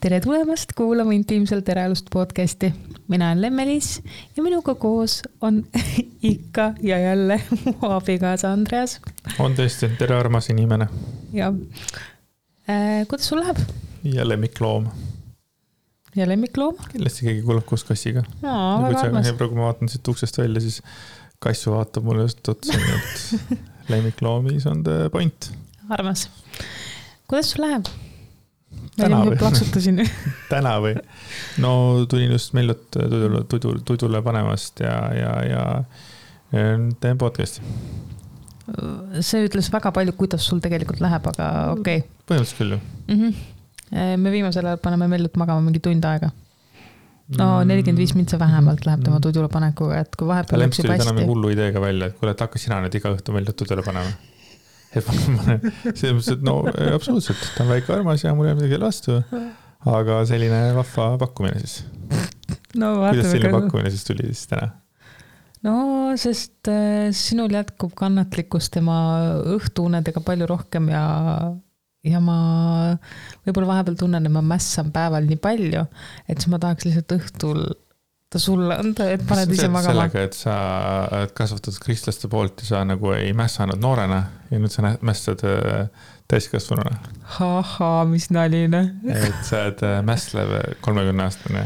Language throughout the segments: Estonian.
Tere tulemast kuulama Intiimselt eraelust podcasti. Mina olen Lemmelis ja minuga koos on ikka ja jälle mu abikaasa Andreas. On tõesti, tere armas inimene. Ja kuidas sul läheb? Ja lemmikloom. Ja lemmikloom? Kindlasti keegi kuulab koos kassiga. Väga armas. Kui ma vaatan siit uksest välja, siis kassu vaatab mulle just otsa, et lemmikloomis on the point. Armas. Kuidas sul läheb? Täna või? Plaksutasin. Täna või? No tulin just Mellut tudule panemast ja teen podcasti. See ütles väga palju, kuidas sul tegelikult läheb, aga okei. Põhimõtteliselt küll ju. Me viimasel ajal paneme Mellut magama mingi tund aega. No 45 mintsa vähemalt läheb tema tudule panekuga, et kui vahepeal läks juba hästi. Täna mingi hullu ideega välja, et kuule, et hakka sina nüüd iga õhtu Mellut tudule panema. Selles mõttes, et no absoluutselt, ta on väike armas ja mul ei midagi vastu, aga selline vahva pakkumine siis. No, kuidas selline pakkumine siis tuli siis täna? No, sest sinul jätkub kannatlikkus tema õhtuunedega palju rohkem ja ma võib-olla vahepeal tunnen, et ma mässan päeval nii palju, et siis ma tahaks lihtsalt õhtul ta sulle anda, et paned ise magama. Sellega, et sa kasvatad kristlaste poolt ja sa nagu ei mässanud noorena ja nüüd sa mässad täiskasvanuna. Mis naline. Et sa oled mässlev 30-aastane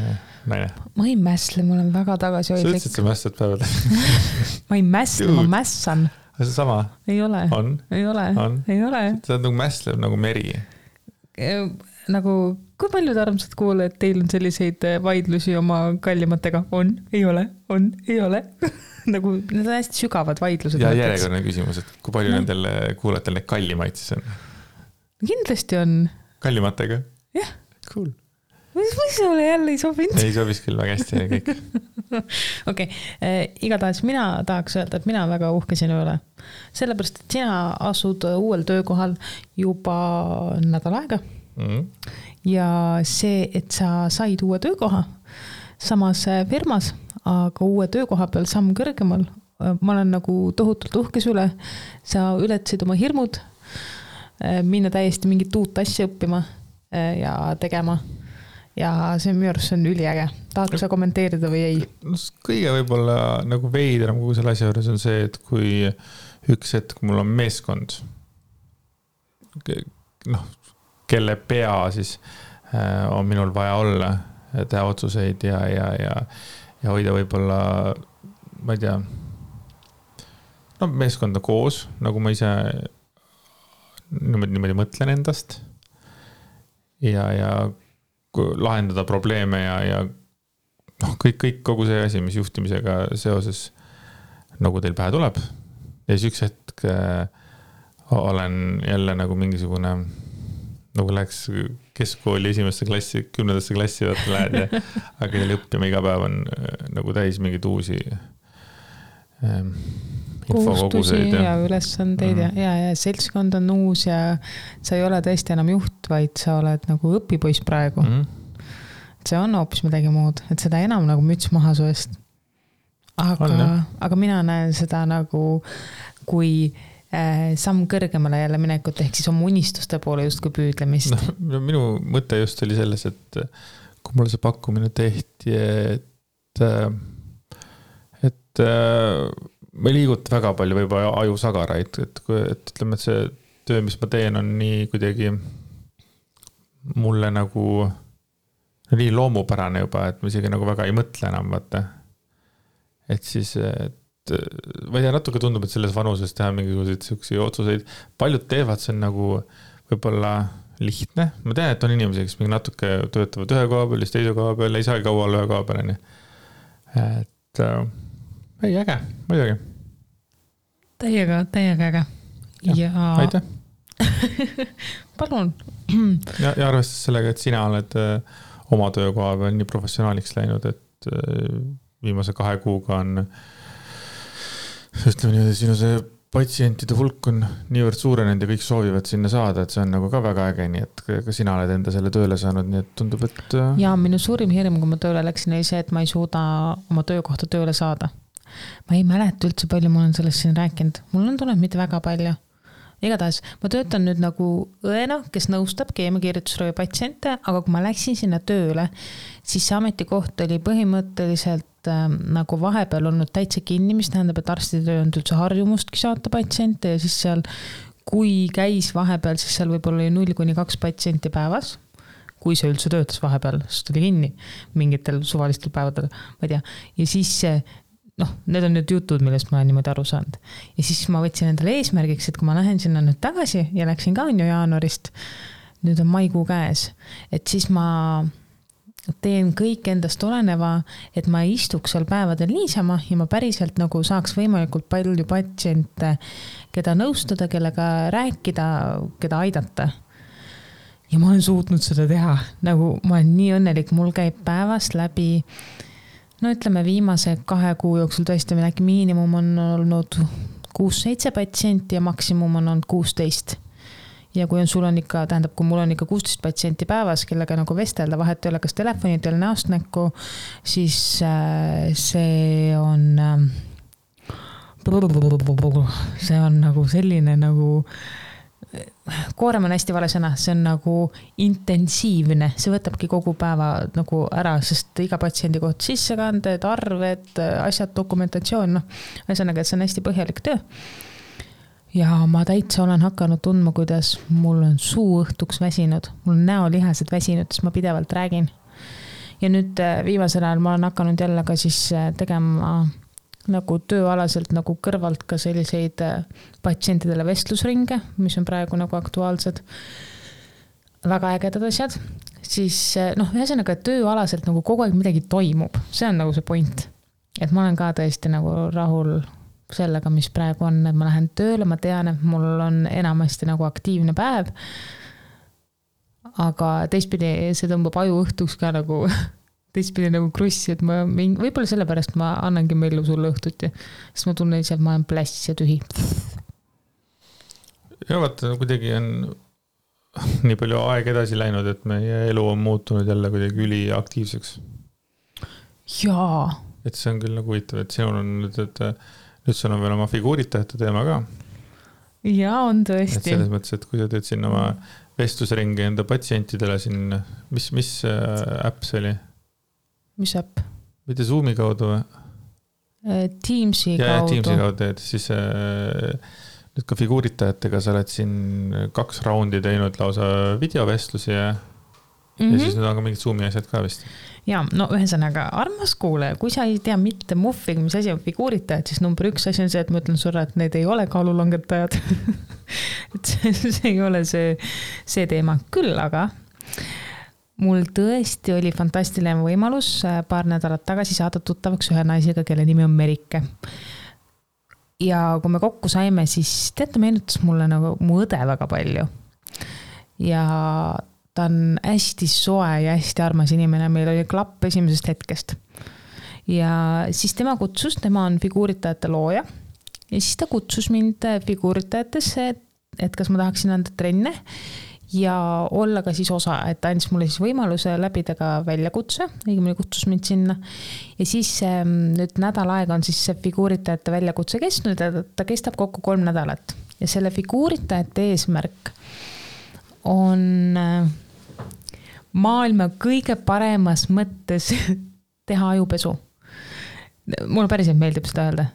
naine. Ma ei mässle, ma olen väga tagasihoidlik. Sa ütlesid, et sa mässad päeval. Ma ei mässle, ma mässan. See sama? Ei ole. On? Ei ole. On? Ei ole. Sa oled nagu mässlev nagu meri. Nagu, kui palju te armsad kuule, et teil on selliseid vaidlusi oma kallimatega? On, ei ole, ei ole. Nagu, need on hästi sügavad vaidlused. Ja järjekordne küsimus, et kui palju nendel kuulajatel need kallimaid siis on? Kindlasti on. Kallimatega? Jah. Cool. Mis sulle jälle ei sobinud? Ei sobis küll väga hästi ja kõik. Okei, igatahes mina tahaks öelda, et mina väga uhke sinu üle. Sellepärast, et sina asud uuel töökohal juba nädal aega. Ja see, et sa said uue töökoha samas firmas, aga uue töökoha peal samm kõrgemal, ma olen nagu tohutult uhkes üle. Sa ületasid oma hirmud, minna täiesti mingit uut asja õppima ja tegema. Ja see minu arust on üliäge. Tahad sa kommenteerida või ei? Kõige võib-olla nagu veidram kogu selle asja juures on see, et kui üks hetk mul on meeskond, kelle pea siis on minul vaja olla, teha otsuseid ja hoida võib-olla, ma ei tea, meeskonda koos, nagu ma ise niimoodi mõtlen endast ja lahendada probleeme ja kõik kogu see asi, mis juhtimisega seoses nagu teil pähe tuleb. Ja siis üks hetk olen jälle nagu mingisugune, nagu läheks keskkooli 1. klassi, 10. klassi vaata lähed ja aga teil õppima iga päev on nagu täis mingid uusi kohustusi ja ülesandeid ja seltskond on uus ja sa ei ole tõesti enam juht, vaid sa oled nagu õpipoiss praegu. See on hoopis midagi muud, et seda enam nagu müts maha su eest. Aga mina näen seda nagu kui samm kõrgemale jälle minekut, ehk siis oma unistuste poole just kui püüdlemist. No, minu mõte just oli selles, et kui mulle see pakkumine tehti, et ma ei liiguta väga palju võib-olla ajusagaraid, et ütleme, et see töö, mis ma teen, on nii kuidagi mulle nagu nii loomupärane juba, et ma isegi nagu väga ei mõtle enam, vaata. Et siis, ma ei tea, natuke tundub, et selles vanuses teha mingisuguseid selliseid otsuseid. Paljud teevad, see on nagu võib-olla lihtne. Ma tean, et on inimesi, kes mingi natuke töötavad ühe koha peal, teise koha peal, ei saa kaua ühe koha peal. Et ei, äge, muidugi. Täiega äge. Ja aitäh. Palun. Ja arvestades sellega, et sina oled oma töökoha peal nii professionaaliks läinud, et viimase 2 kuuga on ütleme nii, sinu see patsientide hulk on niivõrd suurenenud ja kõik soovivad sinna saada, et see on nagu ka väga äge, nii et ka sina oled enda selle tööle saanud, nii et tundub, et ja minu suurim hirm, kui ma tööle läksin, oli see, et ma ei suuda oma töökohta tööle saada. Ma ei mäleta üldse palju, ma olen sellest siin rääkinud. Mul on tulnud mitte väga palju. igatahes ma töötan nüüd nagu õena, kes nõustab keemiakirjutusravi patsiente, aga kui ma läksin sinna tööle, siis see ametikoht oli põhimõtteliselt nagu vahepeal olnud täitsa kinni, mis tähendab, et arstid ei olnud üldse harjumustki saata patsiente ja siis seal, kui käis vahepeal, siis seal võib-olla oli 0-2 patsienti päevas, kui see üldse töötas vahepeal, sest oli kinni mingitel suvalistel päevadel, ma ei tea, ja siis need on nüüd jutud, millest ma olen niimoodi aru saanud. Ja siis ma võtsin endale eesmärgiks, et kui ma lähen sinna nüüd tagasi ja läksin ka ju jaanuarist, nüüd on maikuu käes, et siis ma teen kõik endast oleneva, et ma istuks seal päevadel niisama ja ma päriselt nagu saaks võimalikult palju patsiente, keda nõustada, kellega rääkida, keda aidata. Ja ma olen suutnud seda teha, nagu ma olen nii õnnelik, mul käib päevast läbi ütleme viimase 2 kuu jooksul tõesti meil äkki miinimum on olnud 6-7 patsienti ja maksimum on olnud 16. Ja kui sul on ikka, tähendab, kui mul on ikka 16 patsienti päevas, kellega nagu vestelda, vahet ei ole kas telefoni teil näost näkku, siis see on nagu selline nagu koorem on hästi vale sõna, see on nagu intensiivne, see võtabki kogu päeva nagu ära, sest iga patsiendi koht sissekanded, arved, asjad, dokumentatsioon, ühesõnaga, et see on hästi põhjalik töö. Ja ma täitsa olen hakanud tundma, kuidas mul on suu õhtuks väsinud, mul on näolihased väsinud, siis ma pidevalt räägin. Ja nüüd viimasel ajal ma olen hakanud jälle ka siis tegema nagu tööalaselt nagu kõrvalt ka selliseid patsientidele vestlusringe, mis on praegu nagu aktuaalsed, väga ägedad asjad, siis ühesõnaga, et tööalaselt nagu kogu aeg midagi toimub, see on nagu see point, et ma olen ka tõesti nagu rahul sellega, mis praegu on, et ma lähen tööle, ma tean, et mul on enamasti nagu aktiivne päev, aga teistpidi see tõmbab aju õhtuks ka nagu teistpidi nagu krussi, et ma võib-olla sellepärast ma annangi meelu sulle õhtuti, sest ma tunnen ise, et ma olen pläss ja tühi. Ja vaata, kuidagi on nii palju aeg edasi läinud, et meie elu on muutunud jälle kuidagi üliaktiivseks. Jaa. Et see on küll nagu huvitav, et sinul on nüüd, et nüüd sul on veel oma figuuritajate teema ka. Jaa, on tõesti. Et selles mõttes, et kui sa teed siin oma vestlusringi enda patsientidele siin, mis äpp see oli? Mis äpp? Mitte Zoomi kaudu või? Teamsi kaudu. Ja Teamsi kaudu, et siis nüüd ka figuuritajatega sa oled siin 2 raundi teinud lausa videovestlusi ja siis nüüd on ka mingid Zoomi asjad ka vist. Ja, ühesõnaga, armas kuule, kui sa ei tea mitte muffig, mis asi on figuuritajad, siis number 1 asi on see, et ma ütlen sulle, et need ei ole kaalulangetajad. Et see ei ole see teema. Küll aga mul tõesti oli fantastiline võimalus paar nädalat tagasi saada tuttavaks ühe naisega, kelle nimi on Merike. Ja kui me kokku saime, siis teate, meenutas mulle nagu mu õde väga palju. Ja ta on hästi soe ja hästi armas inimene, meil oli klapp esimesest hetkest. Ja siis tema on figuuritajate looja ja siis ta kutsus mind figuuritajatesse, et kas ma tahaksin anda trenne ja olla ka siis osa, et ta andis mulle siis võimaluse läbida ka väljakutse, õigemini kutsus mind sinna. Ja siis nüüd nädal aega on siis see figuuritajate väljakutse kestnud ja ta kestab kokku 3 nädalat. Ja selle figuuritajate eesmärk on maailma kõige paremas mõttes teha ajupesu. Mulle päriselt meeldib seda öelda.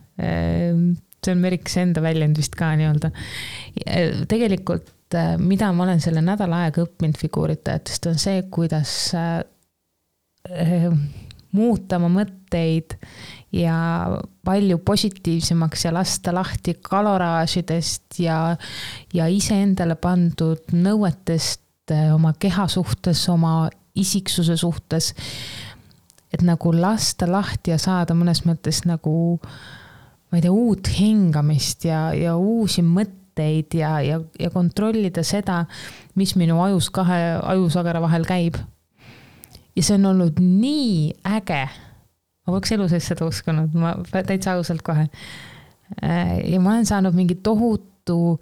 See on Merikse enda väljend vist ka nii-öelda. Tegelikult mida ma olen selle nädala aega õppinud figuuritajatest, on see, kuidas muuta oma mõtteid ja palju positiivsemaks ja lasta lahti kaloraažidest ja ise endale pandud nõuetest oma keha suhtes, oma isiksuse suhtes, et nagu lasta lahti ja saada mõnes mõttes nagu, ma ei tea, uut hingamist ja uusi mõtteid ja kontrollida seda, mis minu ajus 2 ajusagara vahel käib. Ja see on olnud nii äge. Ma poleks elu sees seda uskunud, ma täitsa ausalt kohe. Ja ma olen saanud mingi tohutu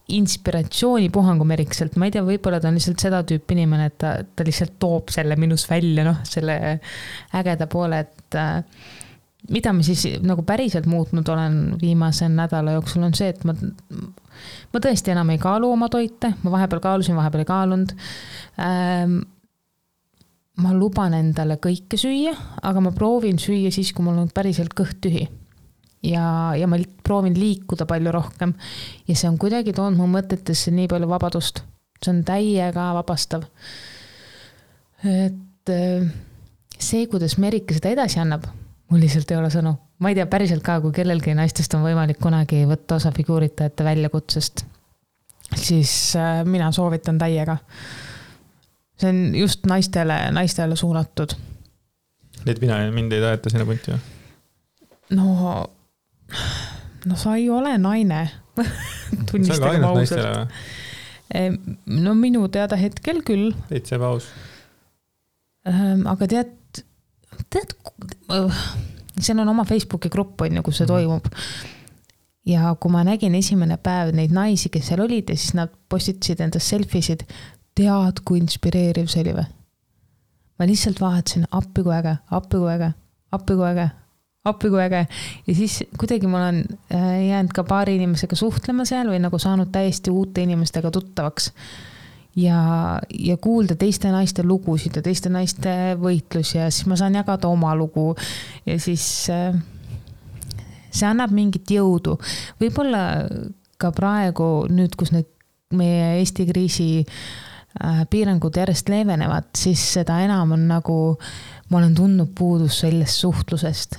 inspiratsioonipuhangu Merikselt. Ma ei tea, võib-olla ta on lihtsalt seda tüüpi inimene, et ta lihtsalt toob selle minus välja, selle ägeda poole, et mida ma siis nagu päriselt muutnud olen viimase nädala jooksul on see, et ma tõesti enam ei kaalu oma toite, ma vahepeal kaalusin, vahepeal ei kaalunud. Ma luban endale kõike süüa, aga ma proovin süüa siis, kui mul on päriselt kõht tühi. Ja ma proovin liikuda palju rohkem ja see on kuidagi toonud mu mõtetesse nii palju vabadust. See on täiega vabastav. Et see, kuidas Merike seda edasi annab, mul lihtsalt ei ole sõnu. Ma ei tea päriselt ka, kui kellelgi naistest on võimalik kunagi võtta osa figuuritajate väljakutsest, siis mina soovitan täiega. See on just naistele suunatud. Need mind ei taheta sinna punti või? No sa ei ole naine. Tunnistagem ausalt. No minu teada hetkel küll. Teid paus. Aga tead, seal on oma Facebooki grupp, on ju, kus see toimub. Ja kui ma nägin esimene päev neid naisi, kes seal olid ja siis nad postitasid endast selfisid, tead, kui inspireeriv see oli või? Ma lihtsalt vaatasin appi kui äge. Ja siis kuidagi ma olen jäänud ka paari inimesega suhtlema seal või nagu saanud täiesti uute inimestega tuttavaks. Ja kuulda teiste naiste lugusid ja teiste naiste võitlus ja siis ma saan jagada oma lugu ja siis see annab mingit jõudu. Võib-olla ka praegu nüüd, kus need meie Eesti kriisi piirangud järjest leevenevad, siis seda enam on nagu ma olen tundnud puudust sellest suhtlusest.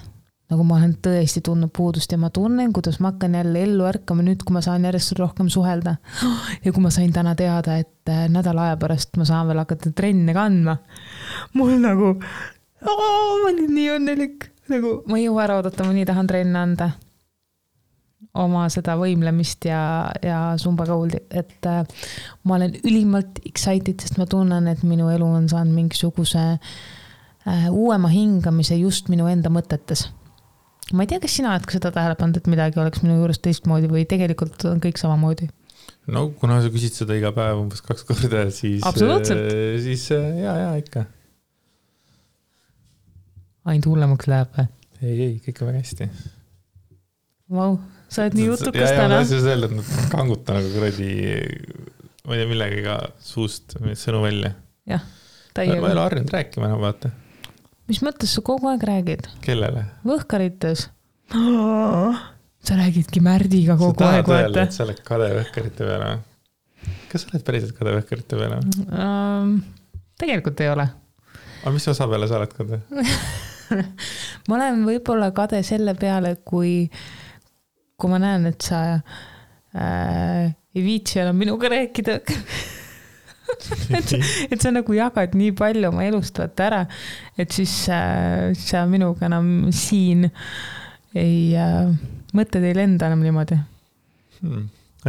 Nagu ma olen tõesti tundnud puudust ja ma tunnen, kuidas ma hakkan jälle ellu ärkama nüüd, kui ma saan järjest rohkem suhelda. Ja kui ma sain täna teada, et nädala aja pärast ma saan veel hakata trenne kandma. Mul nagu, ma olin nii õnnelik. Nagu, ma ei jõua ära oodata, ma nii tahan trenne anda. Oma seda võimlemist ja sumbakõuldi. Et ma olen ülimalt excited, sest ma tunnen, et minu elu on saanud mingisuguse uuema hingamise just minu enda mõtetes. Ma ei tea, kas sina oled ka seda tähele pannud, et midagi oleks minu juures teistmoodi või tegelikult on kõik samamoodi? No, kuna sa küsid seda iga päev umbes 2 korda, siis... Absoluutselt. Siis jaa, ikka. Ainult hullemaks läheb või? Ei, kõik on väga hästi. Vau, sa oled nii jutukas täna. Ma tahtsin öelda, et nad kanguta nagu kuradi, ma ei tea, millega suust sõnu välja. Jah, täiega. Ma ei ole harjunud rääkima enam, vaata. Mis mõttes sa kogu aeg räägid? Kellele? Võhkarites. Sa räägidki Märdiga kogu aeg. Sa tahad öelda, et sa oled kade võhkarite peale? Kas sa oled päriselt kade võhkarite peale? Tegelikult ei ole. Aga mis osa peale sa oled kade? Ma olen võib-olla kade selle peale, kui ma näen, et sa ei viitsi enam minuga rääkida. et sa nagu jagad nii palju oma elust võtta ära, et siis sa minuga enam siin mõtted ei lenda enam niimoodi.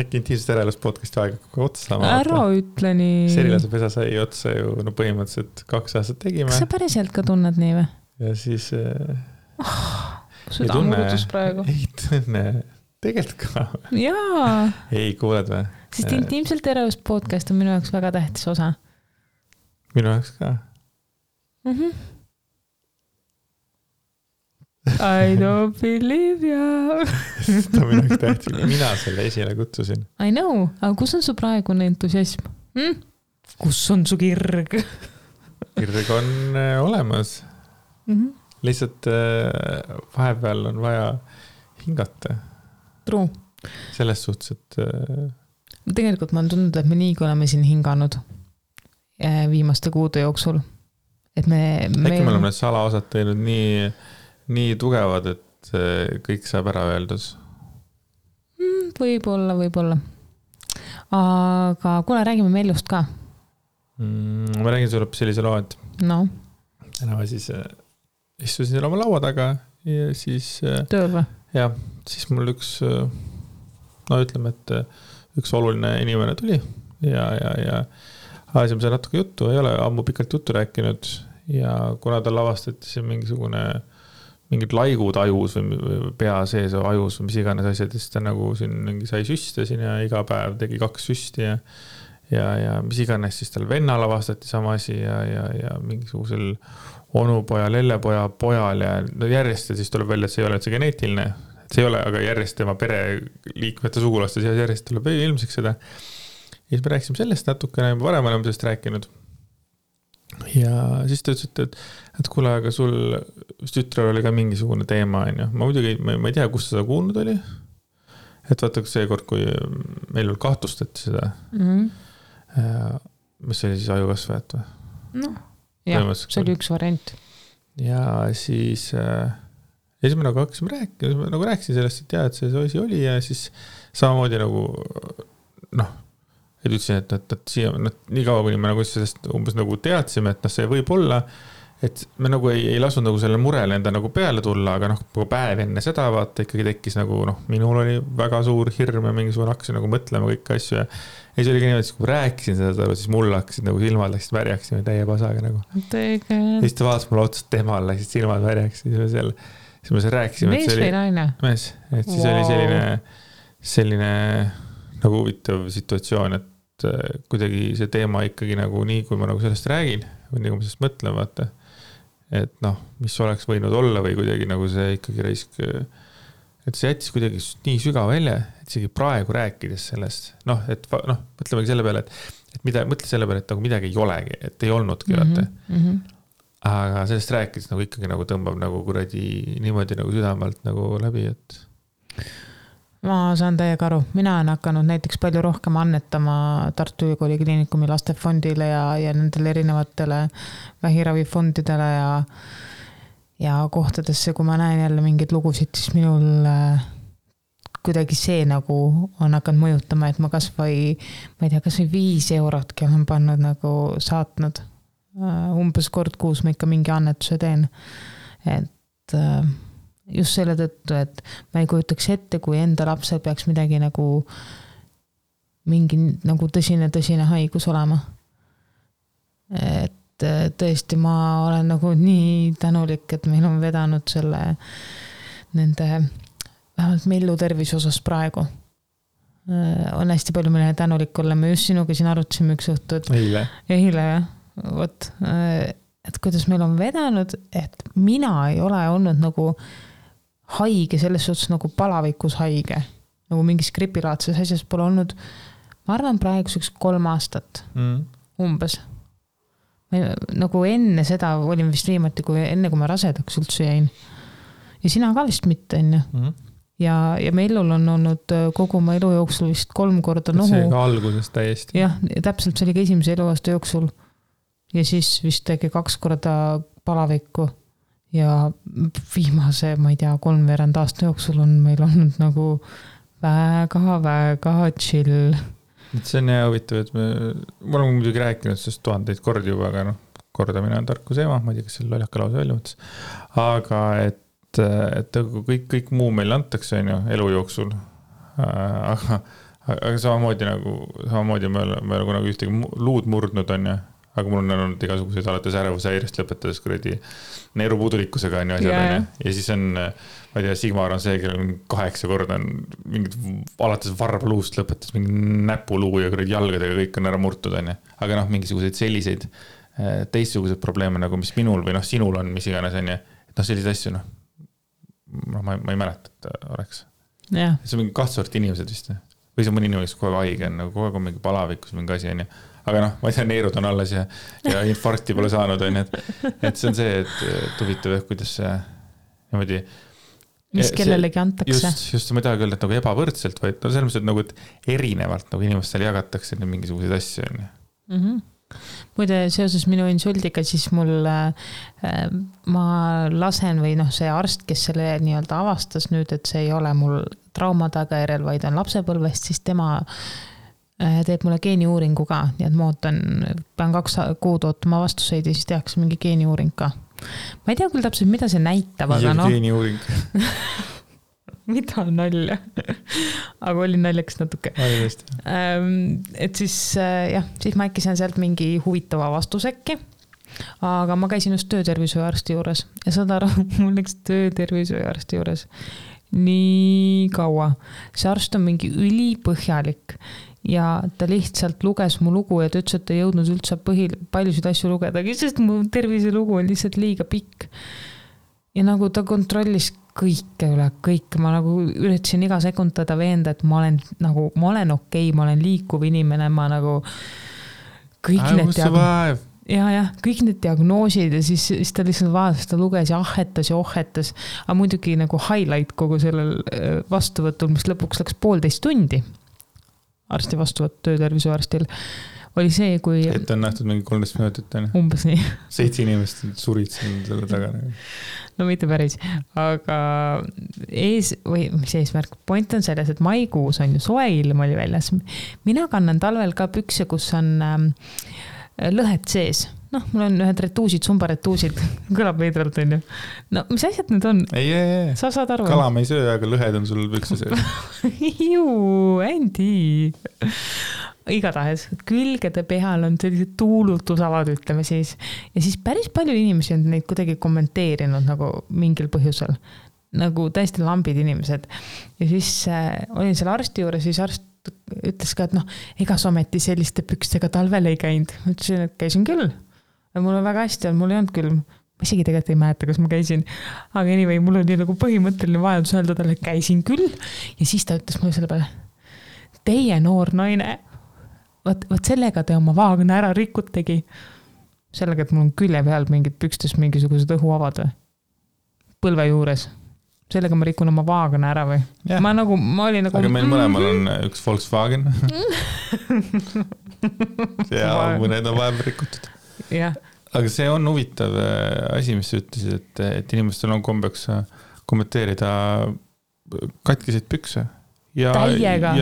Äkki intiimsest äreelust podcasti aega otsa saama. Ära ütle nii. Serilase pesa sai otsa ju põhimõtteliselt 2 aastat tegime. Kas sa päriselt ka tunned nii või? Ja siis südamurutus praegu. Ei tunne. Tegelikult ka. Jaa. Ei, kuuled või? Sest intiimselt äreelust podcast on minu jaoks väga tähtis osa. Minu jaoks ka. I don't believe you. Ta minu jaoks tähtis. Mina selle esile kutsusin. I know, aga kus on su praegune entusiasm? Kus on su kirg? Kirg on olemas. Lihtsalt vahepeal on vaja hingata. True. Selles suhtes, et... Tegelikult ma olen tundnud, et me nii, kui oleme siin hinganud viimaste kuude jooksul. Et äkki me oleme need salaosad teinud nii tugevad, et kõik saab ära öeldus. Võib-olla. Aga kuule, räägime Meljust ka. Ma räägin sulle sellise loo, et täna siis istusin seal oma laua taga ja siis... Tööl või? Ja, siis mul ütleme, et üks oluline inimene tuli ja ajasime seal natuke juttu, ei ole ammu pikalt juttu rääkinud ja kuna ta lavastati siin mingid laigud ajus või pea sees ajus või mis iganes asjad, siis ta nagu siin sai süste siin ja iga päev tegi 2 süsti ja mis iganes, siis tal vennal avastati sama asi ja mingisugusel onupoja, lellepoja, pojal ja no järjest ja siis tuleb välja, et see ei ole üldse geneetiline, et see ei ole, aga järjest tema pereliikmete sugulaste seas järjest tuleb ilmseks seda. Ja siis me rääkisime sellest natukene, varem oleme sellest rääkinud. Ja siis ta ütles, et kuule, aga sul tütrel oli ka mingisugune teema, on ju. Ma muidugi, ma ei tea, kus seda kuulnud oli. Et vaata, seekord, kui meil veel kahtlustati seda, mis oli siis ajukasvajat või? No, jah, see oli üks variant. Ja siis me nagu hakkasime rääkima, nagu rääkisin sellest, et jah, et see asi oli ja siis samamoodi nagu noh, et ütlesin, et siia, nii kaua, kuni me nagu sellest umbes nagu teadsime, et see võib olla, et me nagu ei lasnud nagu selle murele enda nagu peale tulla, aga päev enne seda vaata ikkagi tekkis nagu minul oli väga suur hirm ja mingisugune hakkasin nagu mõtlema kõik asju ja siis oligi niimoodi, kui rääkisin seda, siis mul hakkasid nagu silmad läksid värjaks täie pasaga nagu. Ja siis ta vaatas mulle otsast temal, läksid silmad värjaks ja siis me rääkisime. Mees või naine? Mees, et siis oli selline nagu huvitav situatsioon, et kuidagi see teema ikkagi nagu nii, kui ma nagu sellest räägin või nii, kui ma sellest mõtlen, vaata, et mis oleks võinud olla või kuidagi nagu see ikkagi raisk, et see jättis kuidagi nii sügav välja, et isegi praegu rääkides sellest, mõtlemegi selle peale, et mõtle selle peale, et nagu midagi ei olegi, et ei olnudki, vaata. Aga sellest rääkides nagu ikkagi nagu tõmbab nagu kuradi niimoodi nagu südamalt nagu läbi, et ma saan täiega aru. Mina olen hakanud näiteks palju rohkem annetama Tartu Ülikooli Kliinikumi lastefondile ja nendele erinevatele vähiravifondidele ja kohtadesse, kui ma näen jälle mingeid lugusid, siis minul kuidagi see nagu on hakanud mõjutama, et ma kas või 5 eurotki olen pannud nagu saatnud. Umbes kord kuus ma ikka mingi annetuse teen. Et just selle tõttu, et ma ei kujutaks ette, kui enda lapsel peaks midagi nagu mingi nagu tõsine haigus olema. Et tõesti ma olen nagu nii tänulik, et meil on vedanud selle nende vähemalt Mellu tervise osas praegu. On hästi palju meile tänulik olla. Me just sinuga siin arutasime üks õhtu, et eile jah, võt, et kuidas meil on vedanud, et mina ei ole olnud nagu haige, selles suhtes nagu palavikus haige, nagu mingis gripilaadses asjas pole olnud, ma arvan praeguseks 3 aastat umbes. Nagu enne seda olin vist viimati, enne kui ma rasedaks üldse jäin. Ja sina ka vist mitte, enne. Ja Mellul on olnud kogu oma elu jooksul vist 3 korda nohu. See ka alguses täiesti. Jah, täpselt see oli ka esimese eluaasta jooksul. Ja siis vist tegi 2 korda palavikku. Ja viimase, ma ei tea, 3 aasta jooksul on meil olnud nagu väga chill. See on hea huvitav, et me oleme muidugi rääkinud sellest 1000 kordi juba, aga kordamine on tarkuse ema, ma ei tea, kas selle loljaka lause välja mõttes. Aga et kõik muu meil antakse elu jooksul. Aga samamoodi me oleme nagu ühtegi luud murdnud on ja aga mul on olnud igasuguseid alates ärevusääirest lõpetades kuradi neerupuudulikkusega on ju asjad ja siis on, ma ei tea, Sigmar on see, kellel on 8 korda on mingid alates varbaluust lõpetas mingi näpuluu ja kuradi jalgadega kõik on ära murtud on ju. Aga mingisuguseid selliseid teistsuguseid probleeme nagu mis minul või sinul on, mis iganes on ju, et selliseid asju ma ei mäleta, et oleks. Yeah. See on mingi 2 sorti inimesed vist või see mõni inimene, kes kogu aeg haige on, kogu aeg on mingi palavikus mingi asi on ju. Aga ma ei tea, neerud on alles ja infarkti pole saanud on, et see on see, et huvitav, kuidas see niimoodi mis kellelegi antakse. Just ma ei taha öelda, et nagu ebavõrdselt, vaid selles mõttes, et nagu et erinevalt nagu inimestele jagatakse mingisuguseid asju on ju. Muide, seoses minu insuldiga, siis mul ma lasen või see arst, kes selle nii-öelda avastas nüüd, et see ei ole mul trauma tagajärjel, vaid on lapsepõlvest, siis tema teeb mulle geeniuuringu ka, nii et ma pean 2 kuud ootama vastuseid ja siis tehakse mingi geeniuuring ka. Ma ei tea küll täpselt, mida see näitab, aga geeniuuring. Mida nalja? Aga oli naljaks natuke. Et siis ma äkki saan sealt mingi huvitava vastusekki, aga ma käisin just töötervishoiuarsti juures ja saad aru, mul läks töötervishoiuarsti juures nii kaua. See arst on mingi ülipõhjalik ja ta lihtsalt luges mu lugu ja ta ütles, et ta ei jõudnud üldse paljusid asju lugeda, sest mu terviselugu on lihtsalt liiga pikk. Ja nagu ta kontrollis kõike üle, kõik, ma nagu üritasin iga sekund teda veenda, et ma olen okei, ma olen liikuv inimene, ma nagu kõik kõik need diagnoosid ja siis ta lihtsalt vaatas, ta luges ja ohetas, aga muidugi nagu highlight kogu sellel vastuvõtul, mis lõpuks läks 1,5 tundi arsti vastuvõtt töötervishoiuarstil, oli see, kui... Et on nähtud mingi 13 minutit, umbes nii. 7 inimest surid selle taga. No mitte päris, aga mis eesmärk? Point on selles, et maikuus on ju soe ilm oli väljas. Mina kannan talvel ka pükse, kus on lõhed sees. Noh, mul on ühed retuusid, sumbaretuusid. Kõlab veidralt, on ju. No, mis asjad need on? Ei. Sa saad aru? Kala me ei söö, aga lõhed on sul pükse sees. Andy. Igatahes, külgede peal on sellised tuulutusavad, ütleme siis. Ja siis päris palju inimesi on neid kuidagi kommenteerinud nagu mingil põhjusel. Nagu täiesti lambid inimesed. Ja siis olin seal arsti juures, siis arst ütles ka, et ega ometi selliste pükstega talvel ei käinud. Ütlesin, et käisin küll. Mul on väga hästi, mul ei olnud küll. Ma isegi tegelikult ei mäleta, kas ma käisin. Aga anyway, mul oli nagu põhimõtteline vajadus öelda talle, et käisin küll. Ja siis ta ütles mulle selle peale, teie noor naine, võt sellega te oma vaagna ära rikutegi. Sellega, et mul on külje peal mingid pükstes mingisugused õhuavad või? Põlve juures. Sellega ma rikun oma vaagna ära või? Yeah. Ma olin nagu... Aga meil mõlemal on üks Volkswagen. Ja mõned on vahepeal rikutud. Yeah. Aga see on huvitav asi, mis sa ütlesid, et inimestel on kombeks kommenteerida katkiseid pükse. Ja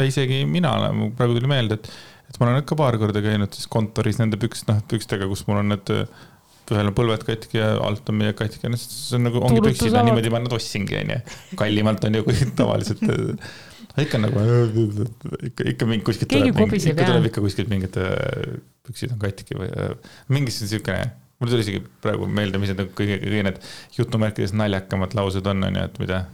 isegi mina olen, praegu tuli meelde, et ma olen ikka paar korda käinud siis kontoris nende pükstega, kus mul on need ühel on põlved katki ja alt on meie katki. See on nagu, ongi püksid, niimoodi ma nad ossingi, kallimalt on ju kui tavaliselt. Ikka nagu, ikka kuskilt tuleb ikka kuskilt mingid püksid on katki või mingis siukene, mul tuli isegi praegu meelde, mis need kõige need jutumärkides naljakamad laused on, et mida.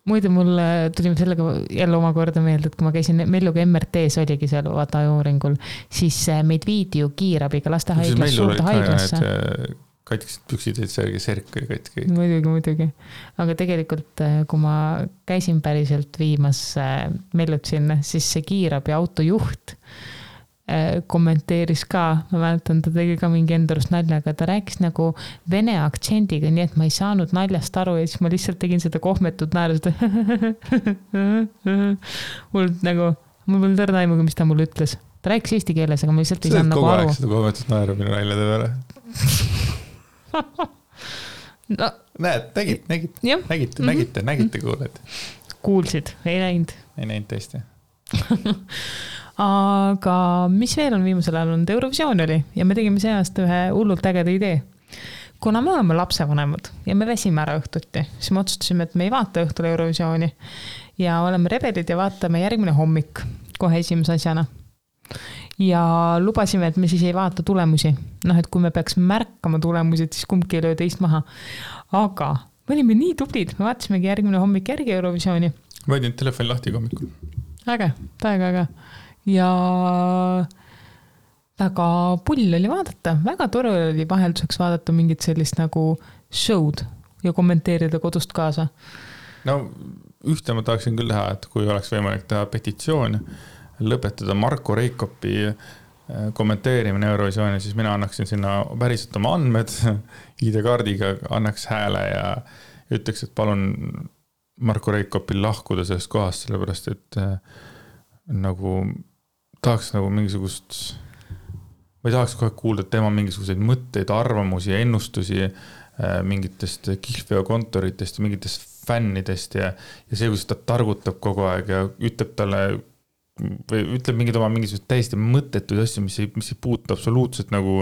Muide, mul tulime sellega jälle omakorda meelde, et kui ma käisin Melluga MRT-s oligi seal vaata uuringul, siis meid viidi ju kiirabiga lastehaiglas suurde haiglasse. Katkised püksid, et see serk või katki. Muidugi. Aga tegelikult, kui ma käisin päriselt viimas Mellut sinna, siis see kiirabi autojuht kommenteeris ka, ma mäletan, ta tegi ka mingi endurust nalja, aga ta rääkis nagu vene aktsendiga, nii et ma ei saanud naljast aru ja siis ma lihtsalt tegin seda kohmetut naeru, mul polnud õrna aimuga, mis ta mulle ütles. Ta rääkis eesti keeles, aga ma lihtsalt ei saanud nagu aru. Seda kohmetut naeru minu naljade peale. No. Näed, nägite, kuuled. Kuulsid, ei näinud. Ei näinud tõesti. Aga mis veel on viimasel ajal olnud? Eurovisioon oli ja me tegime see aasta ühe hullult ägeda idee. Kuna me oleme lapsevanemad ja me väsime ära õhtuti, siis me otsustasime, et me ei vaata õhtul Eurovisiooni ja oleme rebelid ja vaatame järgmine hommik kohe esimese asjana. Ja lubasime, et me siis ei vaata tulemusi. Et kui me peaks märkama tulemusi, siis kumbki ei löö teist maha. Aga me olime nii tublid, me vaatasimegi järgmine hommik järgi Eurovisiooni. Ma võidin telefoni lahti hommikul. Väga. Ja väga pull oli vaadata, väga tore oli vahelduseks vaadata mingit sellist nagu show'd ja kommenteerida kodust kaasa. No ühte ma tahaksin küll teha, et kui oleks võimalik teha petitsioon, lõpetada Marko Reikopi kommenteerimine Eurovisiooni, siis mina annaksin sinna päriselt oma andmed, ID-kaardiga annaks hääle ja ütleks, et palun Marko Reikopil lahkuda sellest kohast, sellepärast et nagu tahaks nagu mingisugust, ma ei tahaks kohe kuulda tema mingisuguseid mõtteid, arvamusi ja ennustusi mingitest kihlveokontoritest ja mingitest fännidest ja see, kus ta targutab kogu aeg ja ütleb talle või ütleb mingid oma mingisugused täiesti mõttetuid asju, mis ei puutu absoluutselt nagu,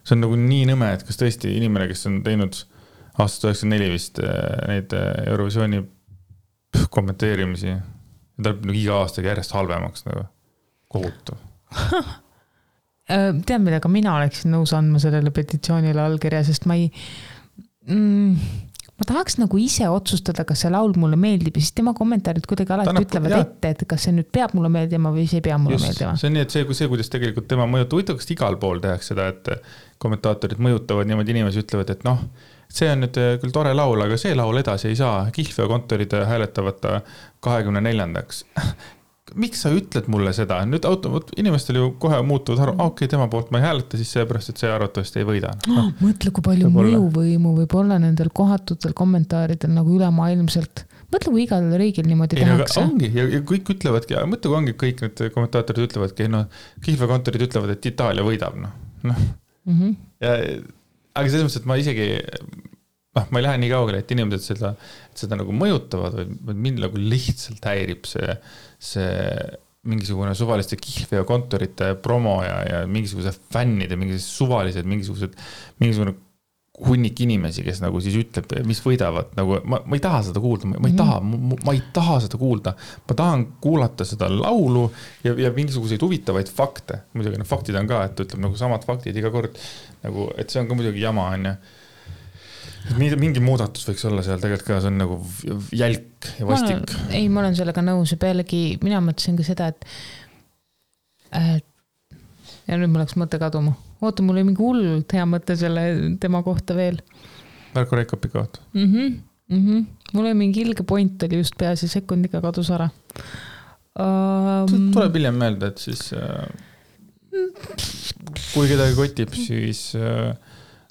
see on nagu nii nõme, et kas tõesti inimene, kes on teinud aastast 94 vist neid Eurovisiooni kommenteerimisi ja ta on nagu iga aastaga järjest halvemaks nagu kohutav. Tean, millega mina oleksin nõus andma sellele petitsioonile allkirja, sest ma ma tahaks nagu ise otsustada, kas see laul mulle meeldib ja siis tema kommentaarid kuidagi alati ütlevad ette, et kas see nüüd peab mulle meeldima või see ei pea mulle meeldima. See on nii, et see, kuidas tegelikult tema mõjutab, kas igal pool tehakse seda, et kommentaatorid mõjutavad niimoodi inimesi ütlevad, et noh, see on nüüd küll tore laul, aga see laul edasi ei saa. Kihlveo kontorid hääletavad 24-ndaks. Miks sa ütled mulle seda? Nüüd inimestel ju kohe muutuvad aru, okei, tema poolt ma ei hääleta, siis seepärast, et see arvatavasti ei võida. Mõtle, kui palju mõjuvõimu võib olla nendel kohatutel kommentaaridel nagu ülemaailmselt. Mõtle, kui igal riigil niimoodi tehakse. Ongi, ja kõik ütlevadki, mõtle, kui ongi kõik need kommentaatorid ütlevadki, Kihlveo kontorid ütlevad, et Itaalia võidab. Aga selles mõttes, et ma isegi ma ei lähe nii kaugele, et inimesed seda nagu mõjutavad, või mind nagu lihtsalt häirib see mingisugune suvaliste Kihlveo kontorite promo ja mingisuguse fännide, mingisugune hunnik inimesi, kes nagu siis ütleb, mis võidavad, nagu ma ei taha seda kuulda, ma ei taha seda kuulda, ma tahan kuulata seda laulu ja mingisuguseid huvitavaid fakte, muidugi need faktid on ka, et ütleb nagu samad faktid iga kord, nagu, et see on ka muidugi jama, on ju. Mingi muudatus võiks olla seal tegelikult ka, see on nagu jälk ja vastik. Ma olen sellega nõus ja pealegi mina mõtlesin ka seda, et ja nüüd mul läks mõte kaduma. Oota, mul oli mingi hullult hea mõte selle tema kohta veel. Marko Reikopi kohta. Mul oli mingi ilge point oli just peas ja sekundiga kadus ära. Tuleb hiljem meelde, et siis kui kedagi kotib, siis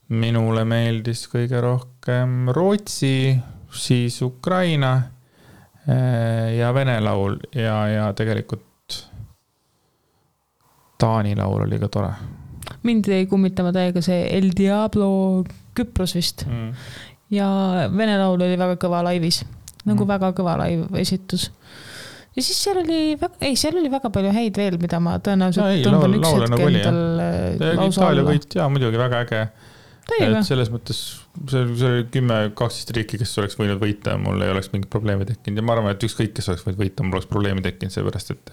minule meeldis kõige rohkem Rootsi, siis Ukraina ja Vene laul ja tegelikult Taani laul oli ka tore. Mind ei kummitama täiega see El Diablo Küpros vist. Ja Vene laul oli väga kõva laivis. Nagu väga kõva laiv esitus. Ja siis seal oli väga palju häid veel, mida ma tõenäoliselt tõmban üks hetk endal lausa Itaalia võit, jaa, muidugi väga äge. Et selles mõttes, see oli 10-12 riiki, kes oleks võinud võita, mul ei oleks mingit probleemi tekkinud ja ma arvan, et ükskõik, kes oleks võinud võita, mul oleks probleemi tekkinud, seepärast, et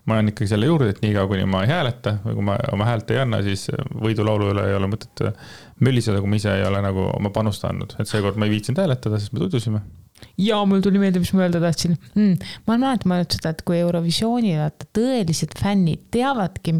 ma olen ikkagi selle juurde, et nii kaua, kuni ma ei hääleta või kui ma oma häält ei anna, siis võidulaulu üle ei ole mõtet mölliseda, kui ma ise ei ole nagu oma panusta andnud, et seekord ma ei viitsinud hääletada, sest me tutvusime. Ja mul tuli meelde, mis ma öelda tahtsin. Ma olen mõelnud seda, et kui Eurovisioonil tõelised fännid teavadki,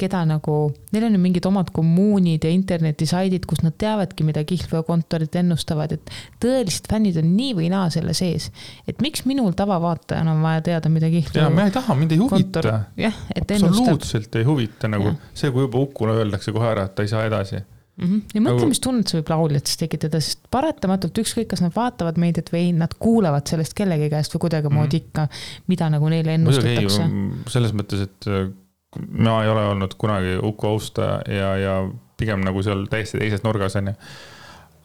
keda nagu, neil on mingid omad kommuunid ja internetisaidid, kus nad teavadki, mida Kihlveo kontorid ennustavad, et tõelised fännid on nii või naa selle sees. Et miks minul tavavaatajana on vaja teada, mida Kihlveo ja, me ei taha, mind ei huvita. Jah, et absoluutselt ei huvita nagu see, kui juba Ukule öeldakse kohe ära, et ta ei saa edasi. Ja mõtle, mis tunnet see võib lauljatest tekitada, sest paratamatult ükskõik, kas nad vaatavad meediat või nad kuulavad sellest kellegi käest või kuidagi moodi ikka, mida nagu neile ennustatakse. Selles mõttes, et ma ei ole olnud kunagi Uku austa ja pigem nagu seal täiesti teises nurgas on.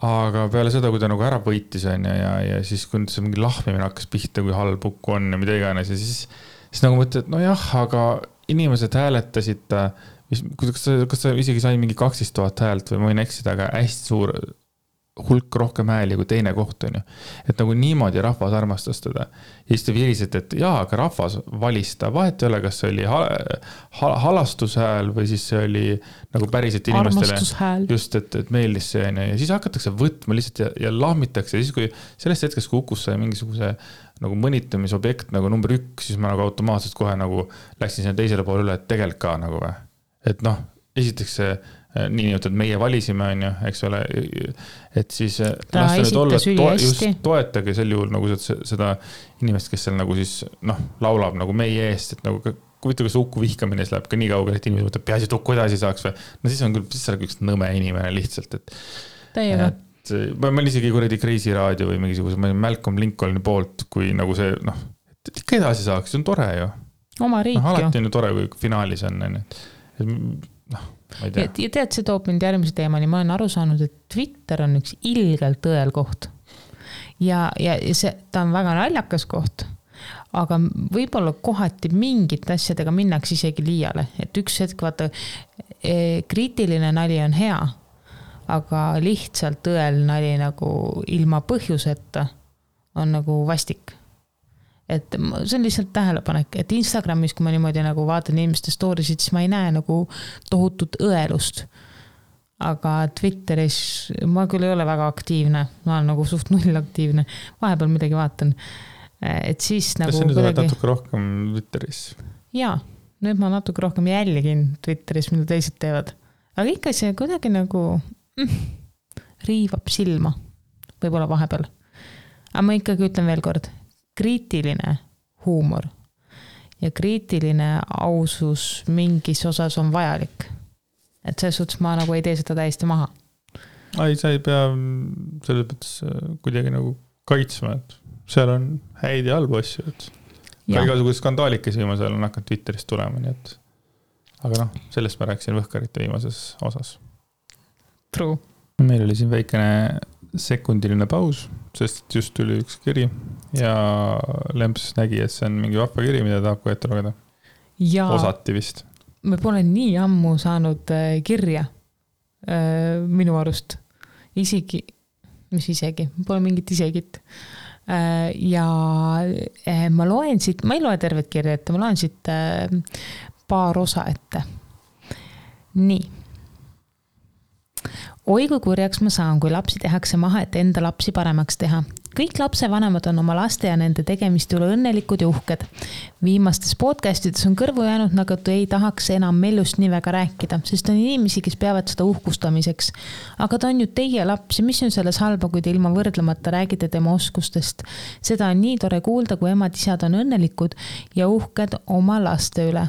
Aga peale seda, kui ta nagu ära võitis on ja siis kui see mingi lahmimine hakkas pihta, kui halb Uku on ja mida iganes ja siis nagu mõtled, et no jah, aga inimesed hääletasid, kas ta isegi sai mingi 12 000 häält või ma võin eksida, aga hästi suur hulk rohkem hääli kui teine koht on ju. Et nagu niimoodi rahvas armastas teda. Ja siis te virised, et jaa, aga rahvas valis ta. Vahet ei ole, kas see oli halastushääl või siis see oli nagu päriselt inimestele just, et meeldis see on ja siis hakatakse võtma lihtsalt ja lahmitakse. Ja siis kui sellest hetkest, kui Ukus sai mingisuguse nagu mõnitamisobjekt nagu number 1, siis ma nagu automaatselt kohe nagu läksin sinna teisele poole üle, et tegelikult ka nagu või. Et noh, esiteks see nii et meie valisime on ju, eks ole, et siis just toetage sel juhul nagu seda inimest, kes seal nagu siis laulab nagu meie eest, et nagu kuvita, kas Uku vihkamine läheb ka nii kaugele, et inimesed mõtleb, peaasi, et Uku edasi saaks või, no siis on küll, siis on üks nõme inimene lihtsalt, et ma olen isegi kuradi Crazy Radio või mingisuguse, ma olen Malcolm Lincolni poolt, kui nagu see, et ikka edasi saaks, see on tore ju. Oma riik ju. Alati on ju tore, kui finaalis on, ja tead, see toob mind järgmise teemani, ma olen aru saanud, et Twitter on üks ilgelt tõel koht ja ta on väga naljakas koht, aga võib-olla kohati mingit asjadega minnaks isegi liiale, et üks hetk vaata, kriitiline nali on hea, aga lihtsalt tõel nali nagu ilma põhjuseta on nagu vastik. Et see on lihtsalt tähelepanek, et Instagramis, kui ma niimoodi nagu vaatan inimeste storisid, siis ma ei näe nagu tohutut õelust. aga Twitteris ma küll ei ole väga aktiivne, ma olen nagu suht null aktiivne, vahepeal midagi vaatan, et siis nagu kas sa nüüd oled natuke rohkem Twitteris? Jaa, nüüd ma natuke rohkem jälgin Twitteris, mida teised teevad, aga ikka see kuidagi nagu riivab silma, võib-olla vahepeal. Aga ma ikkagi ütlen veel kord, kriitiline huumor ja kriitiline ausus mingis osas on vajalik. Et selles suhtes ma nagu ei tee seda täiesti maha. Ei, sa ei pea selles mõttes kuidagi nagu kaitsma, et seal on häid ja halbu asju, et ka igasugused skandaalikesi viimasel on hakanud Twitterist tulema, nii et aga noh, sellest ma rääkisin Võhkarite viimases osas. True. Meil oli siin väikene sekundiline paus, sest just tuli üks kiri ja Lemps nägi, et see on mingi vahva kiri, mida tahab ka ette lugeda. Ja osati vist. Me pole nii ammu saanud kirja minu arust. Isegi, mis isegi, pole mingit isegit. Ja ma loen siit, ma ei loe tervet kirja ette, ma loen siit paar osa ette. Nii. Oi kui kurjaks ma saan, kui lapsi tehakse maha, et enda lapsi paremaks teha. Kõik lapsevanemad on oma laste ja nende tegemist üle õnnelikud ja uhked. Viimastes podcastides on kõrvu jäänud, nagu ei tahaks enam Mellust nii väga rääkida, sest on inimesi, kes peavad seda uhkustamiseks. Aga ta on ju teie laps ja mis on selles halba, kui te ilma võrdlemata räägite tema oskustest. Seda on nii tore kuulda, kui emad-isad on õnnelikud ja uhked oma laste üle.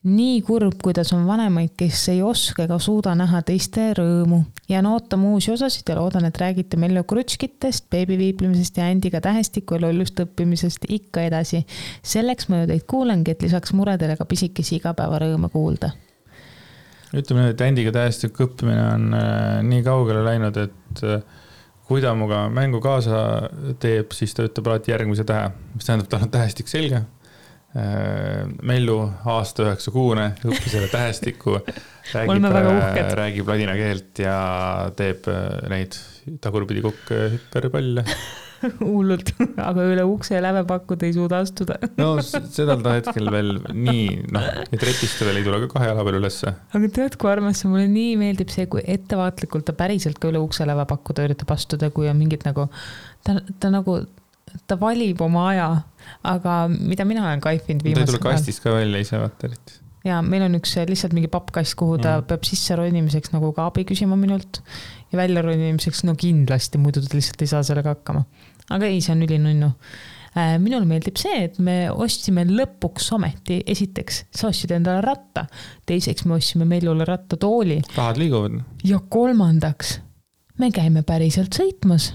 Nii kurb, kuidas on vanemaid, kes ei oska ega suuda näha teiste rõõmu. Ja ootame uusi osasid ja loodan, et räägite Mellu krutskitest, beebiviiplimisest ja Andiga tähestiku ja lollust õppimisest ikka edasi. Selleks ma ju teid kuulengi, et lisaks muredele ka pisikesi igapäeva rõõme kuulda. Ütleme, et Andiga tähestiku õppimine on nii kaugele läinud, et kui ta muga mängu kaasa teeb, siis ta ütleb alati järgmise tähe, mis tähendab, tal on tähestik selge. Mellu aasta 9 kuune õppis selle tähestiku, räägib ladina keelt ja teeb neid tagurpidi kukk hüperpalle. Hullult, aga üle ukse ja lävepakkuda ei suuda astuda. No seda ta hetkel veel nii, et retiste veel ei tule ka 2 jala peal ülesse. Aga tead, kui armas see mulle nii meeldib see, kui ettevaatlikult ta päriselt ka üle ukse lävepakkuda üritab astuda, kui on mingid nagu, ta valib oma aja, aga mida mina olen kaifinud viimasel. Ta ei tule kastist ka välja ise vaata. Ja meil on üks lihtsalt mingi pappkast, kuhu ta peab sisse ronimiseks nagu ka abi küsima minult ja välja ronimiseks no kindlasti, muidu ta lihtsalt ei saa sellega hakkama. Aga ei, see on ülinunnu. Minul meeldib see, et me ostsime lõpuks ometi, esiteks sa ostsid endale ratta, teiseks me ostsime Mellule rattatooli. Rahad liiguvad. Ja kolmandaks, me käime päriselt sõitmas.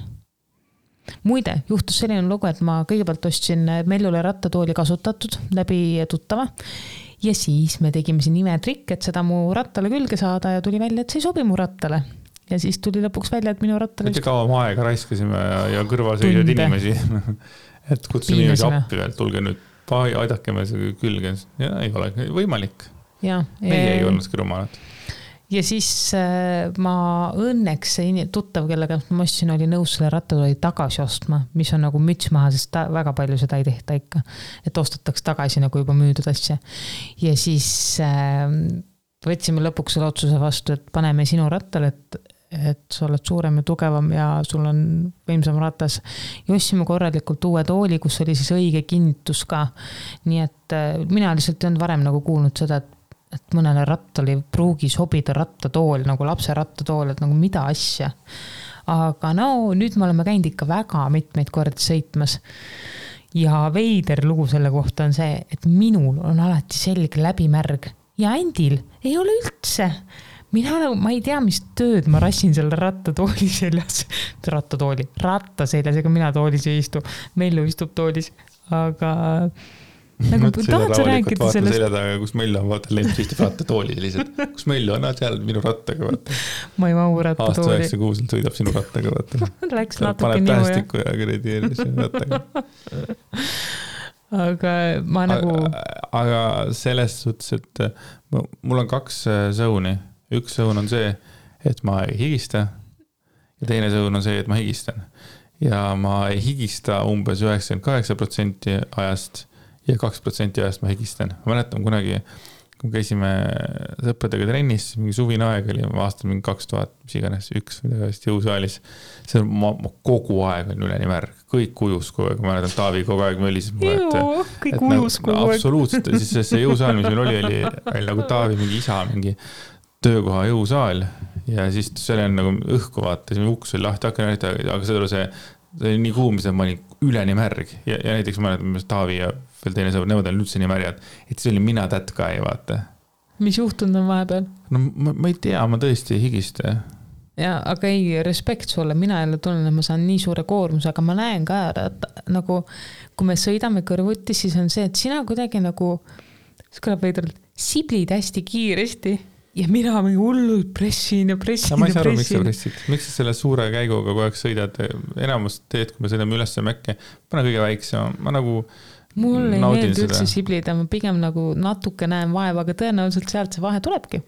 Muide, juhtus selline lugu, et ma kõigepealt ostsin Mellule rattatooli kasutatud läbi tuttava ja siis me tegime siin imetrikk, et seda mu rattale külge saada ja tuli välja, et see ei sobi mu rattale. Ja siis tuli lõpuks välja, et minu rattale... Mitte kaua ma aega raiskasime ja kõrval seisad inimesi, et kutsume inimesi appi veel, tulge nüüd, aidake me see külge. Ja ei ole võimalik. Meie ei olnud rumalad. Ja siis ma õnneks tuttav, kellega ma ostsin, oli nõus selle rattatooli tagasi ostma, mis on nagu müts maha, sest väga palju seda ei tehta ikka, et ostataks tagasi nagu juba müüdud asja. Ja siis võtsime lõpuks selle otsuse vastu, et paneme sinu rattale, et sa oled suurem ja tugevam ja sul on võimsam ratas. Ja ostsime korralikult uue tooli, kus oli siis õige kinnitus ka. Nii et mina lihtsalt ei olnud varem nagu kuulnud seda, et mõnele rattali pruugi sobida rattatool, nagu lapse rattatool, et nagu mida asja. Aga nüüd me oleme käinud ikka väga mitmeid kordi sõitmas. Ja veider lugu selle kohta on see, et minul on alati selge läbimärg ja Andil ei ole üldse. Ma ei tea, mis tööd ma rassin selle rattatooli seljas. Ratta seljas, ega mina toolis ei istu. Mellu istub toolis, aga... Nagu tahad sa rääkida sellest? Selja taga, kus Mellu on, vaata, Lemps istub rattatooli lihtsalt. Kus Mellu on, seal minu rattaga, vaata. Ma ei mahu rattatooli. Aasta 96 sõidab sinu rattaga, vaata. Läks natuke paneb tähestiku ja kredi rattaga. Aga ma nagu... Aga selles suhtes, et mul on 2 sõuni. Üks sõun on see, et ma ei higista ja teine sõun on see, et ma higistan. Ja ma ei higista umbes 98% ajast ja 2% ajast ma higistan. Ma mäletan kunagi kui käisime sõpradega trennis, mingi suvine aeg oli, aastal mingi 2000, mis iganes, üks jõusaalis. See on, ma kogu aeg on üleni märg, kõik ujus kogu aeg, ma mäletan, Taavi kogu aeg mölis. Kõik ujus kogu aeg. Absoluutselt, siis see jõusaal, mis meil oli nagu Taavi mingi isa, mingi töökoha jõusaal ja siis see on nagu õhku vaata, siis uks oli lahti, aga see oli nii kuum, et ma olin üleni märg ja näiteks ma mäletan, Taavi ja veel teine sõber, nemad olid üldse nii märjad, et see oli mina that guy, vaata. Mis juhtunud on vahepeal? No ma ei tea, ma tõesti higiste. Ja, aga ei, respekt sulle, mina jälle tunnen, et ma saan nii suure koormuse, aga ma näen ka, et nagu kui me sõidame kõrvuti, siis on see, et sina kuidagi nagu, see kõlab veidralt, siblid hästi kiiresti ja mina mingi hullult pressin ja pressin. Ma ei saa aru, miks sa pressid. Miks sa selle suure käiguga kogu aeg sõidad? Enamus teed, kui me sõidame üles mäkke, pane kõige väiksema. Ma nagu mul ei meeldi üldse siblida, ma pigem nagu natuke näen vaeva, aga tõenäoliselt sealt see vahe tulebki.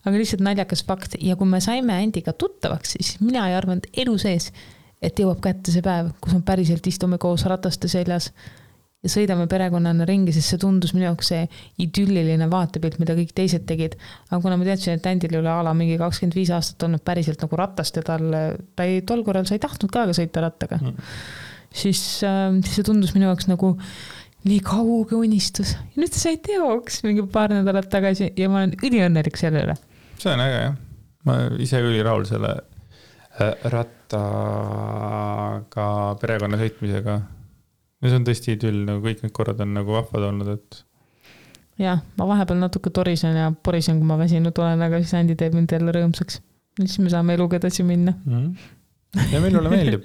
Aga lihtsalt naljakas fakt. Ja kui me saime Andiga tuttavaks, siis mina ei arvanud elu sees, et jõuab kätte see päev, kus me päriselt istume koos rataste seljas ja sõidame perekonnana ringi, sest see tundus minu jaoks see idülliline vaatepilt, mida kõik teised tegid. Aga kuna ma teadsin, et Andil üle ala mingi 25 aastat olnud päriselt nagu ratast ja ta ei tol korral sa ei tahtnud ka sõita rattaga, siis see tundus minu jaoks nagu nii kauge unistus. Ja nüüd sai teoks mingi paar nädalat tagasi ja ma olen üliõnnelik selle üle. See on äge, jah. Ma ise üli rahul selle rattaga perekonna sõitmisega. Ja see on tõesti idüll, nagu kõik need korrad on nagu vahvad olnud, et... Jah, ma vahepeal natuke torisen ja porisen, kui ma väsinud olen, aga siis Andi teeb mind jälle rõõmsaks. Siis me saame eluga edasi minna. Ja meil ole meeldib.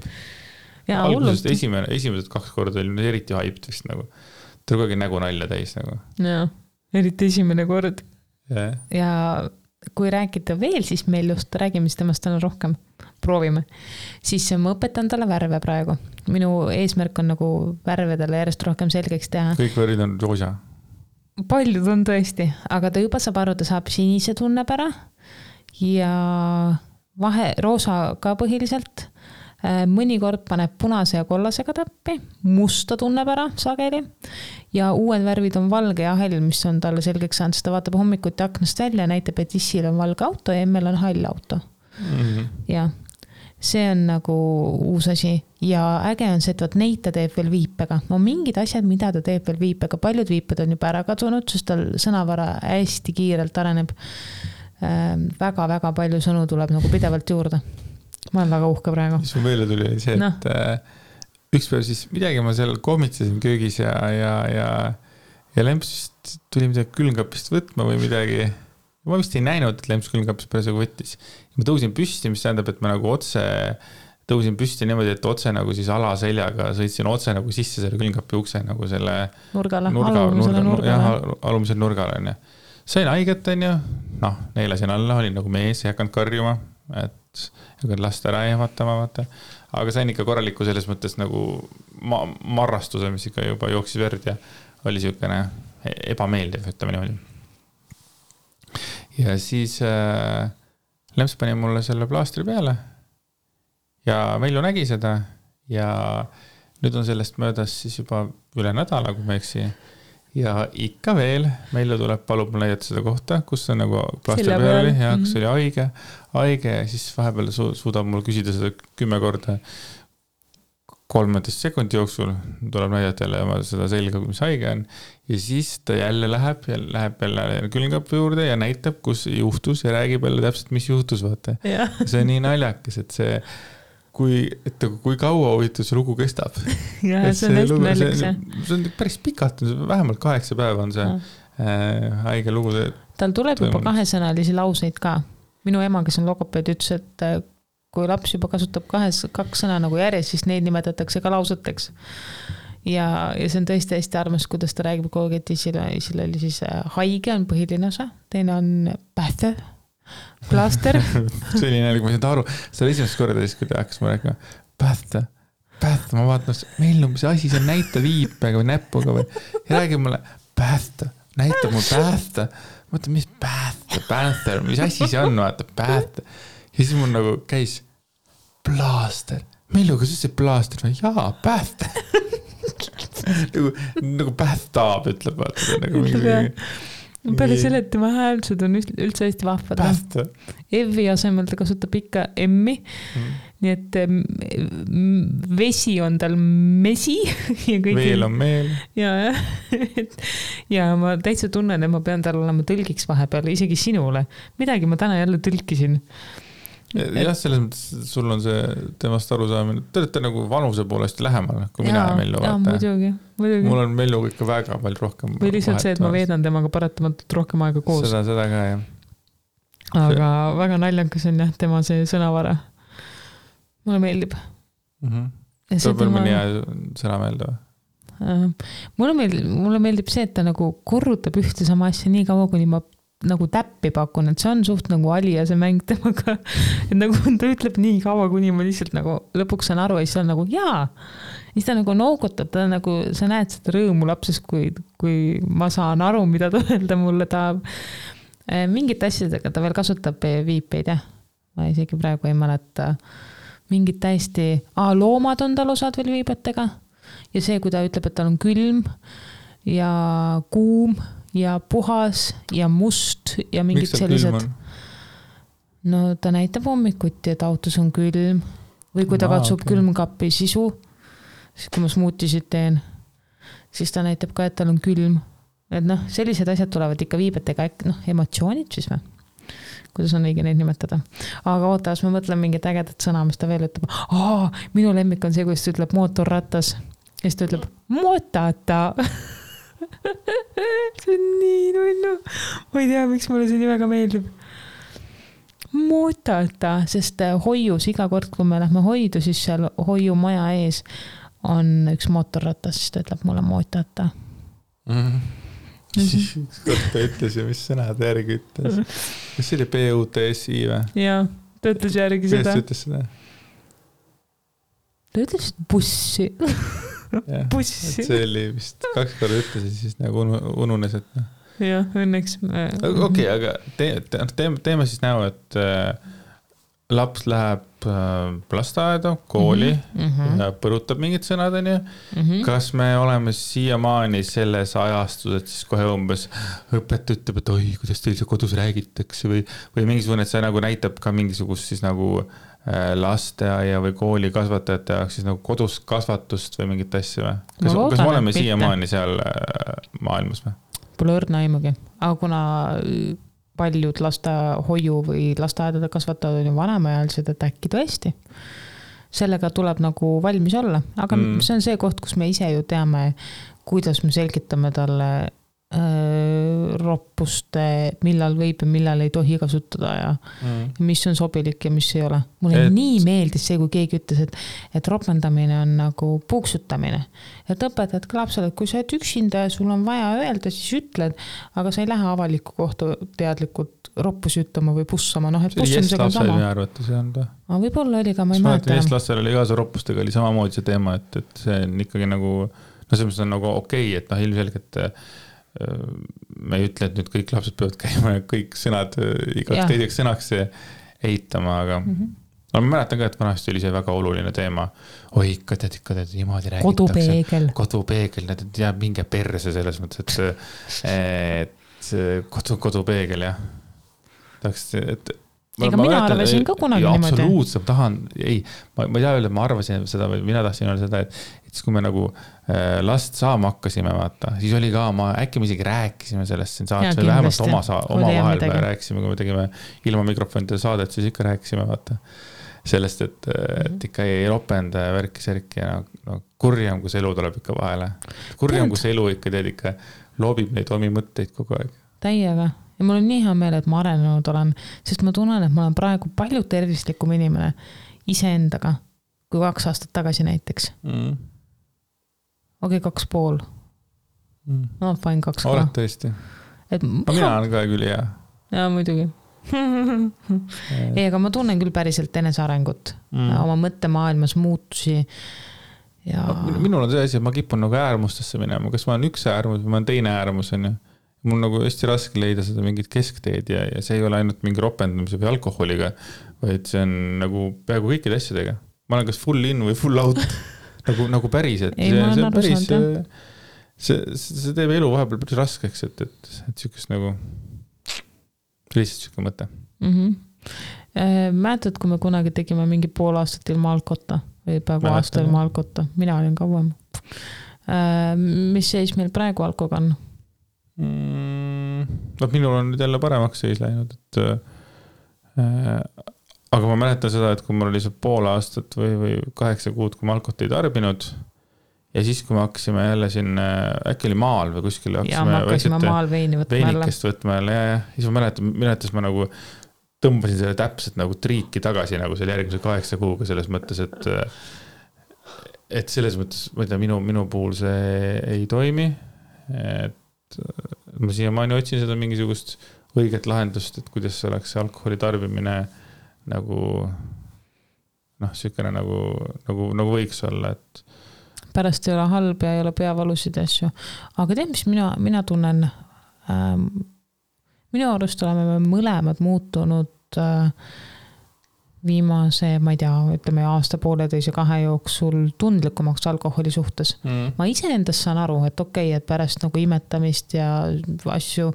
Ja, algusest esimesed 2 korda oli eriti hyped vist nagu. Ta oli nägu nalja täis nagu. Ja, eriti esimene kord. Yeah. Ja kui rääkida veel, siis meil just räägime temast täna rohkem. Proovime. Siis ma õpetan talle värve praegu. Minu eesmärk on nagu värvedele järjest rohkem selgeks teha. Kõik värvid on roosa. Paljud on tõesti, aga ta juba saab aru, ta saab sinise tunneb ära ja roosa ka põhiliselt. Mõnikord paneb punase ja kollasega täppi, musta tunneb ära sageli ja uued värvid on valge ja hall, mis on talle selgeks saanud, sest ta vaatab hommikuti aknast välja ja näitab, et issil on valge auto ja emmel on hall auto. Ja see on nagu uus asi ja äge on see, et neid ta teeb veel viipega. No mingid asjad, mida ta teeb veel viipega, paljud viiped on juba ära kadunud, sest tal sõnavara hästi kiirelt areneb. Väga-väga palju sõnu tuleb nagu pidevalt juurde. Ma olen väga uhke praegu. Mis mu meelde tuli see, et üks päev siis midagi ma seal kohmitsesin köögis ja Lemps tuli midagi külmkapist võtma või midagi. Ma vist ei näinud, et Lemps külmkapist päris võttis. Ma tõusin püsti, mis tähendab, et ma nagu otse tõusin püsti niimoodi, et otse nagu siis alaseljaga sõitsin otse nagu sisse selle külmkapi ukse nagu selle alumisel nurgale. Sain haiget, neelasin alla, olin nagu mees, ei hakanud karjuma, et lasta ära ehmatama, vaata. Aga sain ikka korraliku selles mõttes nagu marrastuse, mis ikka juba jooksis verd ja oli siukene ebameeldiv, ütleme niimoodi. Ja siis Lemps pani mulle selle plaastri peale ja Melju nägi seda ja nüüd on sellest möödas siis juba üle nädala, kui ma eksi. Ja ikka veel, Melju tuleb, palub mul näidata seda kohta, kus on nagu plaastri peal ja kus oli haige ja siis vahepeal suudab mul küsida seda 10 korda 13 sekundi jooksul, tuleb näidata jälle seda selga, mis haige on ja siis ta jälle läheb jälle külmkapi juurde ja näitab, kus juhtus ja räägib jälle täpselt, mis juhtus, vaata. See on nii naljakas, et see kui kaua huvitav see lugu kestab. Ja, see on hästi naljakas. See on päris pikalt, vähemalt 8 päeva on see haige lugu. Tal tuleb juba 2-sõnalisi lauseid ka. Minu ema, kes on logopeed, ütles, et kui laps juba kasutab 2 sõna nagu järjest, siis neid nimetatakse ka lauseteks. Ja see on tõesti hästi armas, kuidas ta räägib kogu aeg, et isil oli siis haige on põhiline osa, teine on pähte, plaaster. See oli näilik, ma ei saanud aru. See oli esimest korda, kui ta hakkas ma rääkima, pähte, ma vaatan, meil on see asi, see näita viipega või näpuga või. Ja räägib mulle, pähte, näitab mul pähte. Ma mõtlen, mis pähte, mis asi see on, vaata, pähte. Ja siis mul nagu käis plaaster. Melju, kas see plaaster? Jaa, pähte. nagu pähtaab, ütleb, vaata. peale selle, et tema häälsud on üldse hästi vahvad. Evi asemel ta kasutab ikka M-i. Nii et vesi on tal mesi. Ja meel on meel. Ja ma täitsa tunnen, et ma pean tal olema tõlgiks vahepeal, isegi sinule. Midagi ma täna jälle tõlkisin. Jah, selles mõttes sul on see temast arusaamine. Te olete nagu vanuse poolest lähemal, kui mina Mellu vaata. Muidugi. Mul on Melluga ikka väga palju rohkem. Või lihtsalt see, et ma veedan temaga paratamatult rohkem aega koos. Seda ka, jah. Aga väga naljakas on jah, tema see sõnavara. Mulle meeldib. Tuleb veel mõni sõna meelde või? Mulle meeldib see, et ta nagu korrutab ühte sama asja nii kaua, kuni ma nagu täppi pakun, et see on suht nagu Alija see mäng temaga, et nagu ta ütleb nii kaua, kuni ma lihtsalt nagu lõpuks saan aru ja siis on nagu jaa, siis ta nagu noogutab, ta nagu, sa näed seda rõõmu lapses, kui ma saan aru, mida ta öelda mulle tahab. Mingit asjadega ta veel kasutab viipeid, jah. Ma isegi praegu ei mäleta. Mingid täiesti, loomad on tal osad veel viibetega ja see, kui ta ütleb, et tal on külm ja kuum ja puhas ja must ja mingid sellised. No ta näitab hommikuti, et autos on külm või kui ta katsub külmkapi sisu, siis kui ma smuutisid teen, siis ta näitab ka, et tal on külm. Et noh, sellised asjad tulevad ikka viibetega, emotsioonid siis või? Kuidas on õige neid nimetada. Aga ootas, ma mõtlen mingit ägedat sõna, mis ta veel ütleb. Minu lemmik on see, kuidas ta ütleb mootorratas ja siis ta ütleb mootata. See on nii nullu. Ma ei tea, miks mulle see nii väga meeldib. Mootata, sest hoius iga kord, kui me lähme hoidu, siis seal hoiu maja ees on üks mootorratas, siis ta ütleb mulle mootata. Kord ta ütles ja mis sõnad järgi ütles. Kas see oli PUTSI või? Jaa, ta ütles järgi seda. Kes ütles seda? Ta ütles bussi. Bussi. See oli vist 2 korda ütles ja siis nagu ununes, et jah, õnneks. Okei, aga teeme siis näo, et laps läheb lasteaeda, kooli ja põrutab mingid sõnad, on ju. Kas me oleme siiamaani selles ajastus, et siis kohe umbes õpetaja ütleb, et oi, kuidas teil see kodus räägitakse või mingisugune, et see nagu näitab ka mingisugust siis nagu lasteaia või kooli kasvatajate jaoks siis nagu kodus kasvatust või mingit asja või? Kas me oleme siiamaani seal maailmas või? Pole õrna aimugi, aga kuna paljud lastehoiu või lasteaedade kasvatavad on ju vanemaealised, et äkki tõesti. Sellega tuleb nagu valmis olla, aga see on see koht, kus me ise ju teame, kuidas me selgitame talle roppust, millal võib ja millal ei tohi kasutada ja mis on sobilik ja mis ei ole. Mulle nii meeldis see, kui keegi ütles, et ropendamine on nagu puuksutamine. Et õpetad ka lapsele, et kui sa oled üksinda ja sul on vaja öelda, siis ütled, aga sa ei lähe avalikku kohta teadlikult roppusi ütlema või pussama. No, et pussamisega on sama. Võib-olla oli ka, ma ei mäleta. Eestlastel oli ka see roppustega oli samamoodi see teema, et see on ikkagi nagu, no see on nagu okei, et ilmselgelt me ei ütle, et nüüd kõik lapsed peavad käima ja kõik sõnad igaks teiseks sõnaks eitama, aga ma mäletan ka, et vanasti oli see väga oluline teema. Oi, ikka tead, niimoodi räägitakse. Kodupeegel, need jääb minge perse selles mõttes, et kodupeegel, jah. Ega mina arvasin ka kunagi niimoodi. Absoluutselt, tahan, ma ei tea öelda, et ma arvasin seda, või mina tahtsin öelda seda, et siis kui me nagu last saama hakkasime, vaata, siis oli ka, äkki me isegi rääkisime sellest siin saates, või vähemalt oma vahel rääkisime, kui me tegime ilma mikrofonide saadet, siis ikka rääkisime, vaata, sellest, et ikka ei ropenda ja värki-särki ja kurjam, kui see elu tuleb ikka vahele. Kurjam, kui see elu ikka teed ikka loobib neid omi mõtteid kogu aeg. Täiega. Ja mul on nii hea meel, et ma arenenud olen, sest ma tunnen, et ma olen praegu palju tervislikum inimene iseendaga kui 2 aastat tagasi näiteks. Okei, 2,5. No, fine 2. Oled tõesti. Mina olen ka küll hea. Jaa, muidugi. Ei, aga ma tunnen küll päriselt enesearengut, oma mõttemaailmas muutusi. Ja... Minul on see asi, et ma kipun nagu äärmustesse minema. Kas ma olen üks äärmus või ma olen teine äärmus, on ju? Mul nagu hästi raske leida seda mingit keskteed ja see ei ole ainult mingi ropendamise või alkoholiga, vaid see on nagu peaaegu kõikide asjadega. Ma olen kas full in või full out, nagu päris, et ei, see on päris, see teeb elu vahepeal päris raskeks, et sükest nagu lihtsalt süke mõte. Mäletad, kui me kunagi tegime mingi pool aastat ilma alkotta või peaaegu aasta ilma alkotta, mina olin kauem. Mis seis meil praegu alkoga on? Minul on nüüd jälle paremaks seis läinud, aga ma mäletan seda, et kui mul oli see pool aastat või 8 kuud, kui ma alkot ei tarbinud ja siis, kui me hakkasime jälle siin, äkki oli maal või kuskil hakkasime maal veinikest võtma jälle ja siis ma mäletas ma nagu tõmbasin selle täpselt nagu triiki tagasi nagu selle järgmise 8 kuuga selles mõttes, et selles mõttes, ma ei tea, minu puhul see ei toimi, et ma siiamaani otsin seda mingisugust õiget lahendust, et kuidas oleks alkoholi tarbimine nagu sükene nagu võiks olla, et pärast ei ole halb ja ei ole peavalusid asju. Aga tead, mis mina tunnen, minu arust oleme me mõlemad muutunud viimase, ma ei tea, ütleme aasta 1,5-2 jooksul tundlikumaks alkoholi suhtes. Ma iseendast saan aru, et okei, et pärast nagu imetamist ja asju,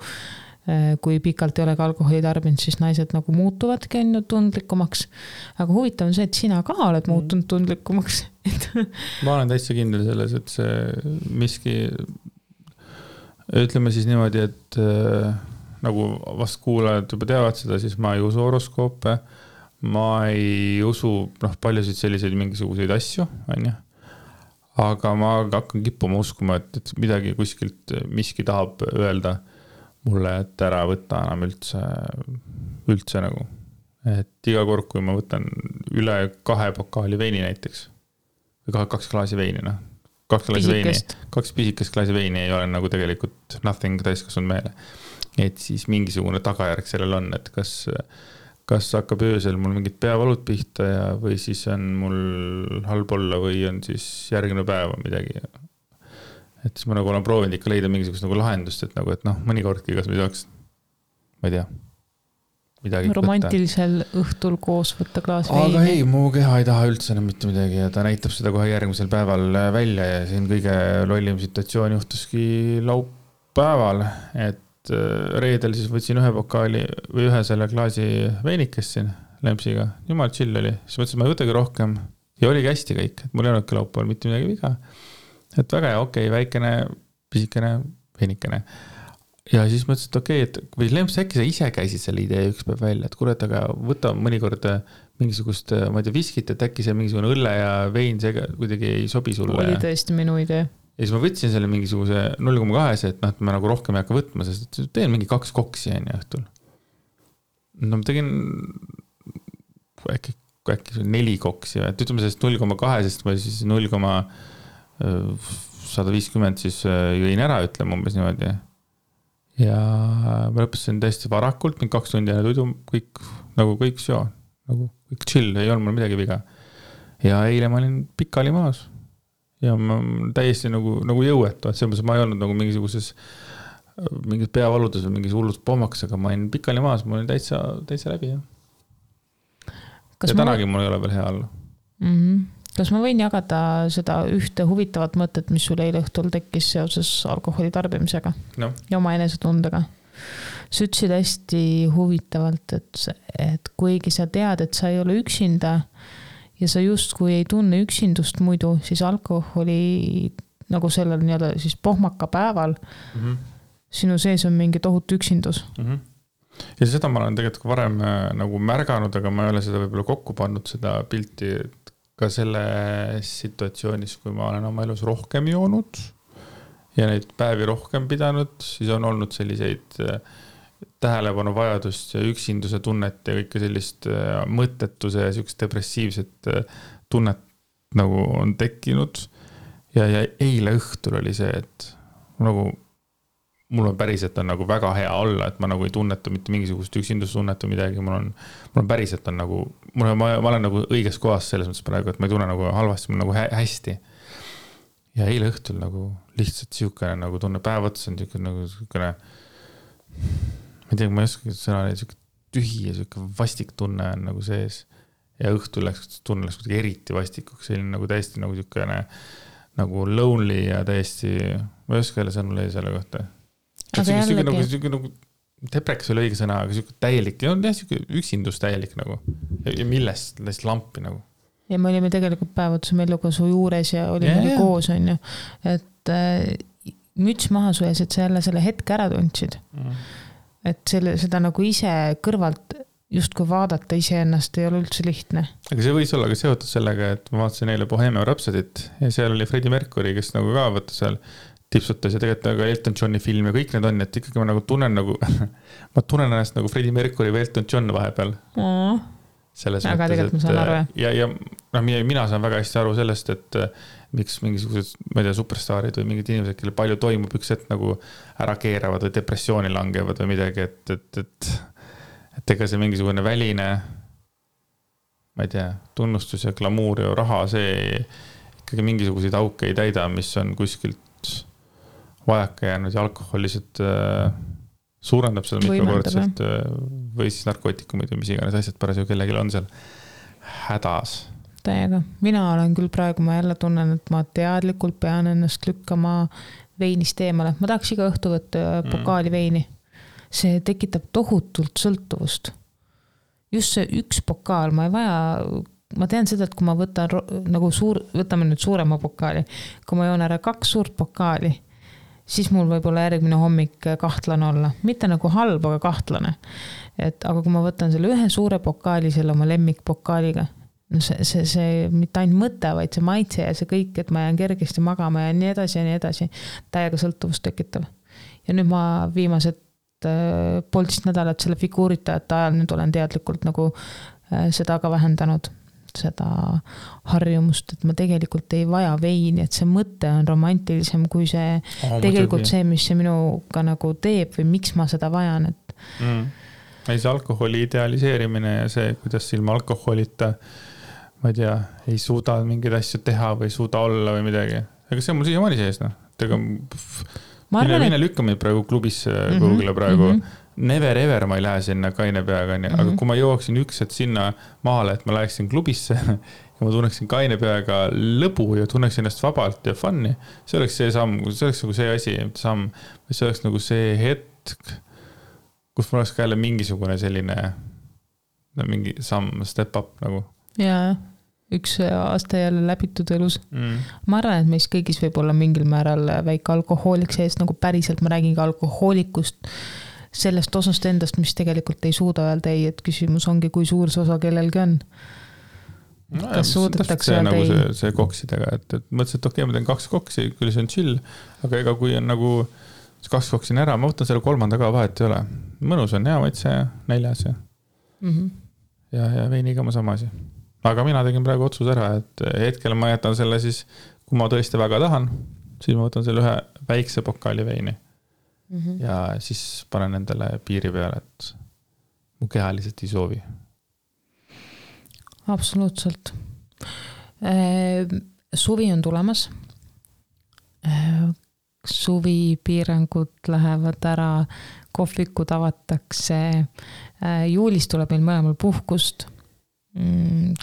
kui pikalt ei ole ka alkoholi tarbinud, siis naised nagu muutuvadki tundlikumaks. Aga huvitav on see, et sina ka oled muutunud tundlikumaks. Ma olen täitsa kindel selles, et see miski, ütleme siis niimoodi, et nagu vast kuulajad juba teavad seda, siis ma ei usu horoskoope, ma ei usu paljusid selliseid mingisuguseid asju, aga ma hakkan kippuma uskuma, et midagi kuskilt miski tahab öelda mulle, et ära võtta enam üldse nagu. Et iga kord, kui ma võtan üle 2 pokaali veini näiteks, või 2 klaasi veini, 2 pisikest klaasi veini ei ole nagu tegelikult nothing täiskasvanud meele. Et siis mingisugune tagajärg sellel on, et kas hakkab öösel mul mingid peavalud pihta või siis on mul halb olla või on siis järgmine päev midagi. Et siis ma nagu olen proovinud ikka leida mingisugust nagu lahendust, et mõnikordki, kas me saaks, ma ei tea, midagi romantilisel õhtul koos võtta klaas veini. Aga ei, mu keha ei taha üldse enam mitte midagi ja ta näitab seda kohe järgmisel päeval välja ja siin kõige lollim situatsioon juhtuski laupäeval, et reedel siis võtsin 1 pokaali või 1 selle klaasi veinikest siin lempsiga. Jumal chill oli. Siis mõtlesin, ma ei võtagi rohkem ja oligi hästi kõik. Et mul ei olnudki laupäeval mitte midagi viga. Et väga hea, okei, väikene, pisikene, veinikene. Ja siis mõtlesin, et okei, et või lemps äkki sa ise käisid selle idee üks päev välja, et kurat, aga võta mõnikord mingisugust, ma ei tea, viskit, et äkki see mingisugune õlle ja vein see kuidagi ei sobi sulle. Oli tõesti minu idee. Ja siis ma võtsin selle mingisuguse 0,2, et ma nagu rohkem ei hakka võtma, sest teen mingi 2 koksi õhtul. No ma tegin äkki 4 koksi, et ütleme sellest 0,2, sest ma siis 0,150 siis jõin ära, ütleme umbes niimoodi. Ja ma lõpetasin täiesti varakult, mingi 2 tundi ja tuidu, kõik seo, nagu kõik chill, ei olnud mul midagi viga. Ja eile ma olin pikali maas. Ja ma täiesti nagu jõuetu, et selles ma ei olnud nagu mingisuguses mingid peavaludes või mingis hullus pommaks, aga ma olin pikali maas, ma olin täitsa läbi. Ja tänagi mul ei ole veel hea olla. Kas ma võin jagada seda ühte huvitavat mõtet, mis sul eile õhtul tekkis seoses alkoholi tarbimisega ja oma enesetundega? Sa ütlesid hästi huvitavalt, et kuigi sa tead, et sa ei ole üksinda ja sa justkui ei tunne üksindust muidu, siis alkoholi nagu sellel nii-öelda siis pohmaka päeval sinu sees on mingi tohutu üksindus. Ja seda ma olen tegelikult varem nagu märganud, aga ma ei ole seda võib-olla kokku pannud seda pilti ka selle situatsioonis, kui ma olen oma elus rohkem joonud ja neid päevi rohkem pidanud, siis on olnud selliseid tähelepanu vajadust ja üksinduse tunnet ja kõike sellist mõttetuse ja sellist depressiivset tunnet nagu on tekkinud. Ja eile õhtul oli see, et nagu mul on päriselt on nagu väga hea olla, et ma nagu ei tunneta mitte mingisugust üksindustunnet või midagi, mul on päriselt on nagu, ma olen nagu õiges kohas selles mõttes praegu, et ma ei tunne nagu halvasti, mul nagu hästi. Ja eile õhtul nagu lihtsalt siukene nagu tunne päev otsa on siukene, ma ei tea, ma ei oska sõna, siuke tühi ja siuke vastik tunne on nagu sees. Ja õhtul tunne läks eriti vastikuks, selline nagu täiesti nagu siukene nagu lonely ja täiesti ma ei oska jälle sõnu leida selle kohta. Nagu depreks oli õige sõna, aga siuke täielik, üksindus täielik nagu. Ja millest läks lampi nagu. Ja me olime tegelikult päevatusel Mellukasu juures ja olime koos, on ju. Et müts maha su ees, et sa jälle selle hetke ära tundsid. Et seda nagu ise kõrvalt just kui vaadata ise ennast ei ole üldse lihtne. Aga see võis olla ka seotud sellega, et ma vaatasin eile Bohemian Rhapsodit ja seal oli Freddie Mercury, kes nagu ka võtta seal tipsutas ja tegelikult ka Elton Johni film ja kõik need on, et ikkagi ma nagu tunnen nagu, ma tunnen ennast nagu Freddie Mercury või Elton John vahepeal. Selles aga tegelikult ma saan aru, ja mina saan väga hästi aru sellest, et miks mingisugused, ma ei tea, superstaarid või mingid inimesed, kelle palju toimub üks hetk nagu ära keeravad või depressiooni langevad või midagi, et ega see mingisugune väline, ma ei tea, tunnustus ja glamuur ja raha, see ikkagi mingisuguseid auke ei täida, mis on kuskilt vajaka jäänud ja alkoholiselt suurendab seda mitmekordselt või siis narkootikumid või mis iganes asjad parasjagu kellelgi on seal hädas. Täiega. Mina olen küll praegu, ma jälle tunnen, et ma teadlikult pean ennast lükkama veinist eemale. Ma tahaks iga õhtu võtta pokaali veini. See tekitab tohutult sõltuvust. Just see üks pokaal, ma ei vaja, ma tean seda, et kui ma võtan nagu võtame nüüd suurema pokaali, kui ma joon ära 2 suurt pokaali, siis mul võib olla järgmine hommik kahtlane olla. Mitte nagu halb, aga kahtlane. Aga kui ma võtan selle ühe suure pokaali, selle oma lemmikpokaaliga, no see mitte ainult mõte, vaid see maitse ja see kõik, et ma jään kergesti magama ja nii edasi, täiega sõltuvust tekitav. Ja nüüd ma viimased poolteist nädalat selle figuuritajate ajal nüüd olen teadlikult nagu seda ka vähendanud. Seda harjumust, et ma tegelikult ei vaja veini, et see mõte on romantilisem kui see tegelikult see, mis see minuga nagu teeb või miks ma seda vajan. Et... Ei see alkoholi idealiseerimine ja see, kuidas ilma alkoholita, ma ei tea, ei suuda mingeid asju teha või ei suuda olla või midagi. Aga see on mul siiamaani sees, noh. Mine lükkame praegu klubisse Google'le praegu. Never ever ma ei lähe sinna kaine peaga, aga kui ma jooksin üks hetk sinna maale, et ma läheksin klubisse ja ma tunneksin kaine peaga lõbu ja tunneksin ennast vabalt ja funni, see oleks see samm, see oleks nagu see asi, samm, või see oleks nagu see hetk, kus mul oleks ka jälle mingisugune selline mingi samm, step up nagu. Jaa, üks aasta jälle läbitud elus. Ma arvan, et meis kõigis võib olla mingil määral väike alkohoolik sees, nagu päriselt ma räägin ka alkohoolikust, sellest osast endast, mis tegelikult ei suuda öelda ei, et küsimus ongi, kui suur see osa kellelgi on. Kas suudetakse öelda ei? Nagu see koksidega, et mõtlesin, et okei, ma teen 2 koksi, küll see on chill, aga ega kui on nagu 2 koksin ära, ma võtan selle 3. ka vahet ei ole. Mõnus on hea maitse, 4. ja veiniga ma sama asi. Aga mina tegin praegu otsus ära, et hetkel ma jätan selle siis, kui ma tõesti väga tahan, siis ma võtan selle ühe väikse pokaali veini. Ja siis panen endale piiri peale, et mu keha lihtsalt ei soovi. Absoluutselt. Suvi on tulemas. Suvi piirangud lähevad ära, kohvikud avatakse. Juulis tuleb meil mõlemal puhkust.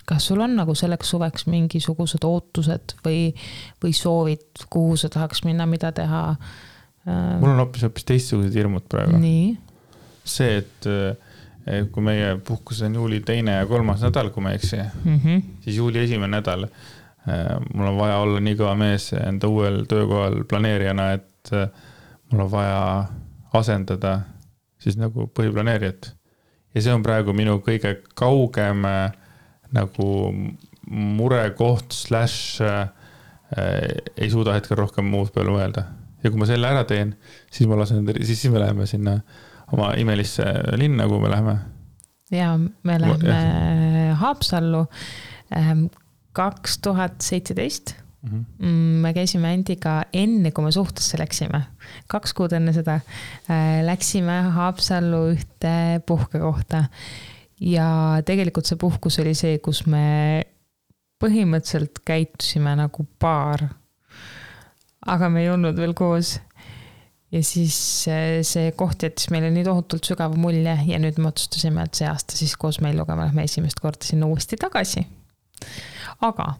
Kas sul on nagu selleks suveks mingisugused ootused või soovid, kuhu sa tahaks minna, mida teha? Mul on hoopis teistsugused hirmud praegu. Nii. See, et kui meie puhkus on juuli 2. ja 3. nädal, kui ma eksi, siis juuli 1. nädal mul on vaja olla nii kõva mees enda uuel töökohal planeerijana, et mul on vaja asendada siis nagu põhiplaneerijat. Ja see on praegu minu kõige kaugem nagu murekoht / ei suuda hetkel rohkem muud peale mõelda. Ja kui ma selle ära teen, siis me läheme sinna oma imelisse linna, kuhu me läheme. Ja me läheme Haapsallu 2017. Me käisime Andiga enne, kui me suhtesse läksime. 2 kuud enne seda läksime Haapsallu ühte puhkekohta. Ja tegelikult see puhkus oli see, kus me põhimõtteliselt käitusime nagu paar. Aga me ei olnud veel koos. Ja siis see koht jättis meile nii tohutult sügava mulje ja nüüd me otsustasime, et see aasta siis koos Melluga me lähme esimest korda sinna uuesti tagasi. Aga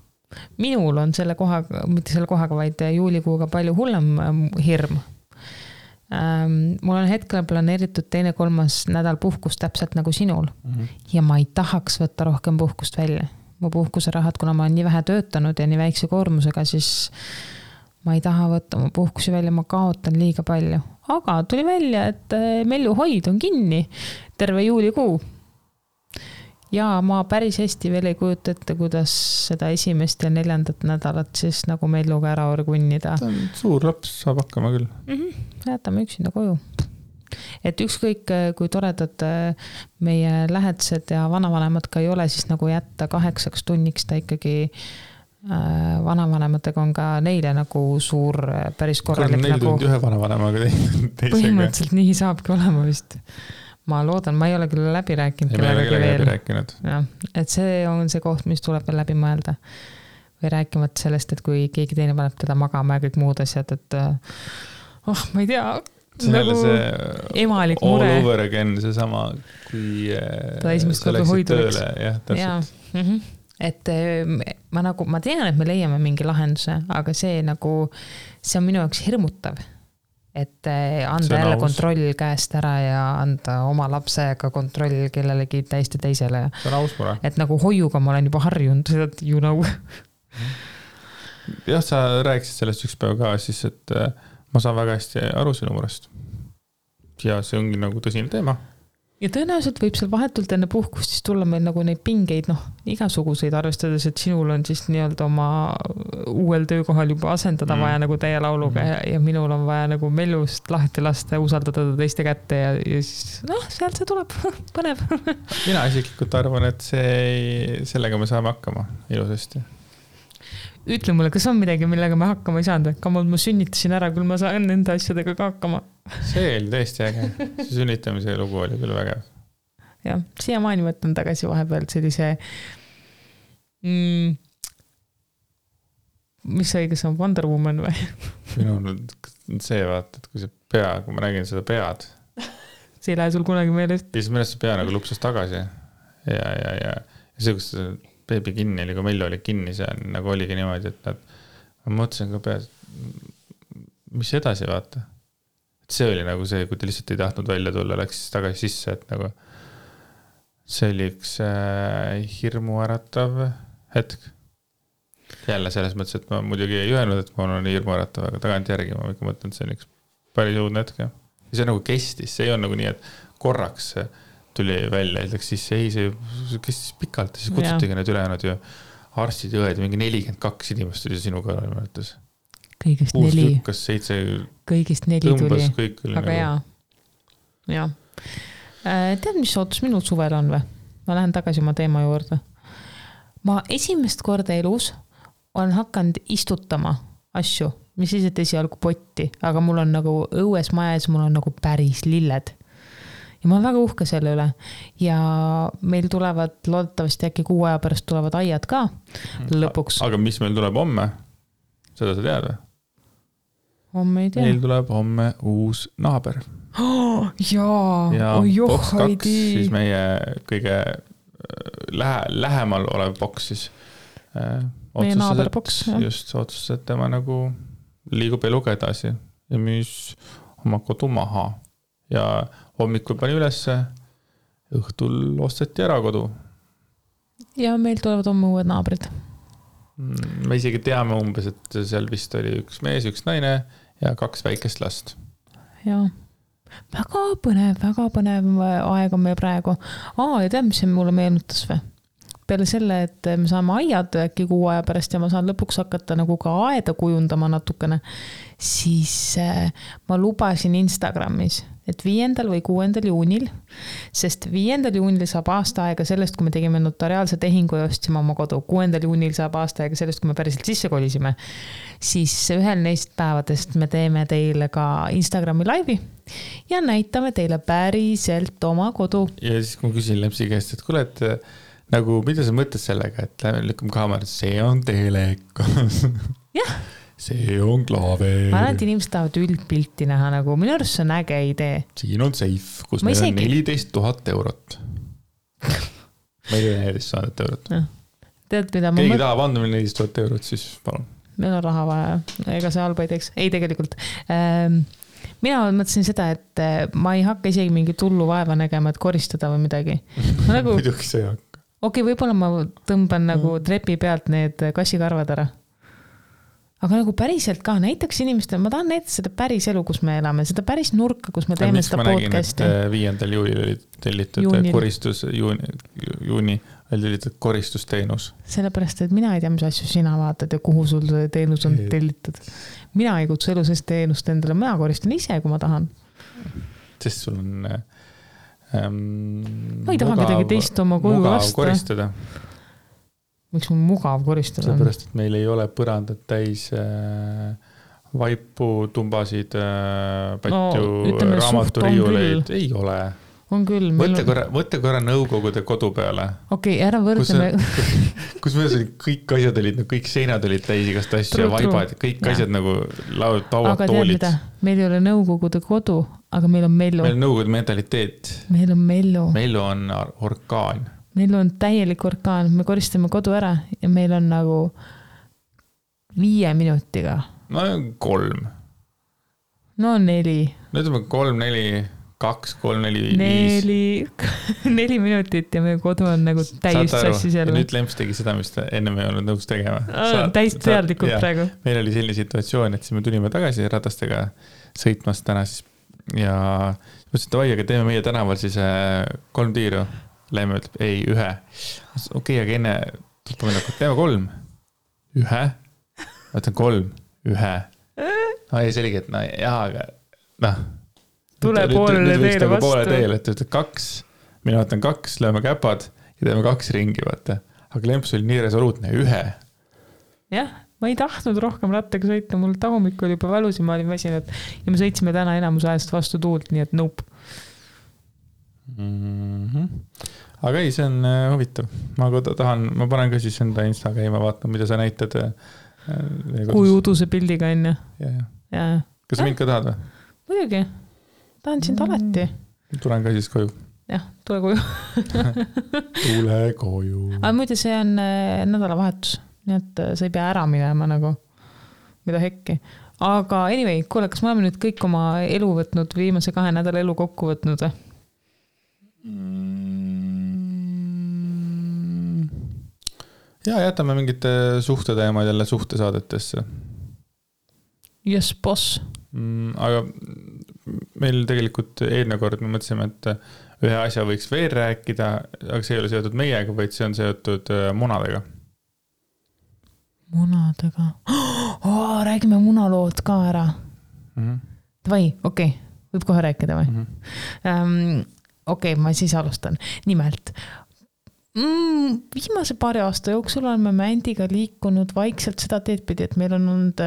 minul on selle kohaga, mitte selle kohaga, vaid juulikuuga palju hullem hirm. Mul on hetkel planeeritud 2-3 nädal puhkust täpselt nagu sinul ja ma ei tahaks võtta rohkem puhkust välja. Mu puhkuserahad, kuna ma olen nii vähe töötanud ja nii väikse koormusega, siis ma ei taha võtta mu puhkusi välja, ma kaotan liiga palju. Aga tuli välja, et Melluhoid on kinni terve juulikuu. Ja ma päris hästi veel ei kujuta ette, kuidas seda 1. ja 4. nädalat siis nagu Melluga ära orgunnida. Ta on suur laps, saab hakkama küll. Jätame üksinda koju. Et ükskõik, kui toredad meie lähedased ja vanavanemad ka ei ole, siis nagu jätta 8 tunniks ta ikkagi vanavanematega on ka neile nagu suur päris korralik. 4 tundi ühe vanavanemaga teisega. Põhimõtteliselt nii saabki olema vist. Ma loodan, ma ei ole küll läbi rääkinud. Ei, me ei ole läbi rääkinud. Ja, et see on see koht, mis tuleb veel läbi mõelda. Või rääkimata sellest, et kui keegi teine paneb teda magama ja kõik muud asjad, et ma ei tea, see nagu emalik mure. All over again, see sama, kui sa läksid tööle. Jah, täpselt. Et ma tean, et me leiame mingi lahenduse, aga see on minu jaoks hirmutav. Et anda jälle kontroll käest ära ja anda oma lapsega kontroll kellelegi täiesti teisele. See on aus mure. Et nagu hoiuga ma olen juba harjunud, you know. Jah, sa rääkisid sellest üks päev ka, siis et ma saan väga hästi aru sinu murest. Ja see ongi nagu tõsine teema. Ja tõenäoliselt võib seal vahetult enne puhkust siis tulla meil nagu neid pingeid, igasuguseid arvestades, et sinul on siis nii-öelda oma uuel töökohal juba asendada vaja nagu teie lauluga ja minul on vaja nagu Mellust lahti lasta ja usaldada teiste kätte ja siis sealt see tuleb põnev. Mina isiklikult arvan, et sellega me saame hakkama ilusasti. Ütle mulle, kas on midagi, millega me hakkama ei saanud? Kamalt ma sünnitasin ära, küll ma saan nende asjadega ka hakkama. See oli tõesti äge. See sünnitamise lugu oli küll vägev. Jah, siiamaani võtan tagasi vahepeal sellise mis see õigus on, Wonder Woman või? Minu on see vaata, et kui see pea, kui ma nägin seda pead. See ei lähe sul kunagi meelest. Ja siis mõnest see pea nagu lupsas tagasi. Ja see, kus beebi kinni oli, kui Mellu oli kinni, see nagu oligi niimoodi, et ma mõtlesin ka peas, mis edasi vaata. Et see oli nagu see, kui ta lihtsalt ei tahtnud välja tulla, läks tagasi sisse, et nagu see oli üks hirmuäratav hetk. Jälle selles mõttes, et ma muidugi ei öelnud, et ma olen hirmuäratav, aga tagant järgi ma ikka mõtlen, et see on üks päris uudne hetk. Ja see nagu kestis, see ei on nagu nii, et korraks tuli välja, ütleks siis see kestis pikalt, siis kutsutigi need ülejäänud ju arstid ja õed, mingi 42 inimest tuli sinu kõrval mõnetus. Kõigist 4. Kas 7 kõigist 4 tuli. Aga nagu... jaa. Tead, mis ootus minul suvel on või? Ma lähen tagasi oma teema juurde. Ma esimest korda elus olen hakanud istutama asju, mis siis, et esialgu potti, aga mul on nagu õues majas, mul on nagu päris lilled. Ja ma olen väga uhke selle üle. Ja meil tulevad, loodetavasti äkki 6 aja pärast tulevad aiad ka lõpuks. Aga mis meil tuleb homme? Seda sa tead või? Homme ei tea. Meil tuleb homme uus naaber. Ja boks 2, siis meie kõige lähemal olev boks siis. Meie naaberboks. Just otsustas, et tema nagu liigub eluga edasi ja müüs oma kodu maha. Ja hommikul pani ülesse, õhtul osteti ära kodu. Ja meil tulevad homme uued naabrid. Me isegi teame umbes, et seal vist oli üks mees, üks naine ja 2 väikest last. Ja väga põnev aeg on meil praegu. Ja tead, mis see mulle meenutas või? Peale selle, et me saame aiad äkki 6 aja pärast ja ma saan lõpuks hakata nagu ka aeda kujundama natukene, siis ma lubasin Instagramis, et 5. või 6. juunil, sest 5. juunil saab aasta aega sellest, kui me tegime notariaalse tehingu ja ostsime oma kodu. 6. juunil saab aasta aega sellest, kui me päriselt sisse kolisime. Siis ühel neist päevadest me teeme teile ka Instagrami laivi ja näitame teile päriselt oma kodu. Ja siis kui ma küsin Lepsi käest, et kuule, et nagu, mida sa mõtled sellega, et lähme lükkame kaamera, see on telekas. Jah. See on klaaver. Ma arvan, et inimesed tahavad üldpilti näha, nagu minu arust see on äge idee. Siin on safe, kus meil on 14 000 eurot. Meil on 14 000 eurot. tead, mida keegi tahab anda meile 14 000 eurot, siis palun. Meil on raha vaja, ega see halba ei teeks. Ei, tegelikult. Mina mõtlesin seda, et ma ei hakka isegi mingi tullu vaeva nägema, et koristada või midagi. Nagu, muidugi see ei hakka. Okei, võib-olla ma tõmban nagu trepi pealt need kassikarvad ära. Aga nagu päriselt ka näitaks inimestele, ma tahan näidata seda päris elu, kus me elame, seda päris nurka, kus me teeme seda podcasti. Ma nägin, et 5. juulil oli tellitud koristus, juuni oli tellitud koristusteenus. Sellepärast, et mina ei tea, mis asju sina vaatad ja kuhu sul see teenus on tellitud. Mina ei kutsu elu sest teenust endale, mina koristan ise, kui ma tahan. Sest sul on ma ei taha kedagi teist oma koju lasta. Koristada. Miks on mugav koristada? Sellepärast, et meil ei ole põrandad täis vaipu, tumbasid, patju, raamaturiiuleid. Ei ole. On küll. Võtte korra Nõukogude kodu peale. Okei, ära võrdleme. Kus meil kõik asjad olid, kõik seinad olid täis igast asju ja vaibad, kõik asjad nagu lauad, tauad, aga toolid. Aga tead mida? Meil ei ole Nõukogude kodu, aga meil on mellu. Meil on Nõukogude mentaliteet. Meil on mellu. Mellu on orkaan. Meil on täielik orkaan, me koristame kodu ära ja meil on nagu 5 minutiga. No 3. No 4. No ütleme 3, 4, 2, 3, 4, 5. 4 minutit ja meie kodu on nagu täis sassis jälle. Nüüd Lemps tegi seda, mis ta enne me ei olnud nõus tegema. Täis teadlikult praegu. Meil oli selline situatsioon, et siis me tulime tagasi ratastega sõitmast täna siis ja mõtlesin, et vai, aga teeme meie tänaval siis 3 tiiru. Läime ütleb, ei, 1. Okei, aga enne tuleb meile, teeme 3. 1. Ma ütlen 3. 1. No ei, selge, et no jah, aga noh. Tule poolele teele vastu. Poole teele, et ütleb 2. Mina ütlen 2, lööme käpad ja teeme 2 ringi, vaata. Aga Lemps oli nii resoluutne, 1. Jah, ma ei tahtnud rohkem rattaga sõita, mul tagumik oli juba valus ja ma olin väsinud ja me sõitsime täna enamus ajast vastu tuult, nii et nope. Aga ei, see on huvitav. Ma panen ka siis enda Insta käima, vaatan, mida sa näitad. Kui uduse pildiga enne. Ja. Kas sa mind ka tahad või? Muidugi. Tahan sind alati. Tulen ka siis koju. Jah, tule koju. Tule koju. Aga muide, see on nädalavahetus. Nii et sa ei pea ära minema nagu. Mida hekki. Aga anyway, kuule, kas me oleme nüüd kõik oma elu võtnud, viimase 2 nädala elu kokku võtnud või? Ja jätame mingite suhteteemad jälle suhtesaadetesse. Yes, boss. Aga meil tegelikult eelmine kord me mõtlesime, et ühe asja võiks veel rääkida, aga see ei ole seotud meiega, vaid see on seotud munadega. Munadega? Räägime munalood ka ära. Vai, okei. Võib kohe rääkida või? Okei, ma siis alustan. Nimelt, viimase 2 aasta jooksul oleme Andiga liikunud vaikselt seda teed pidi, et meil on olnud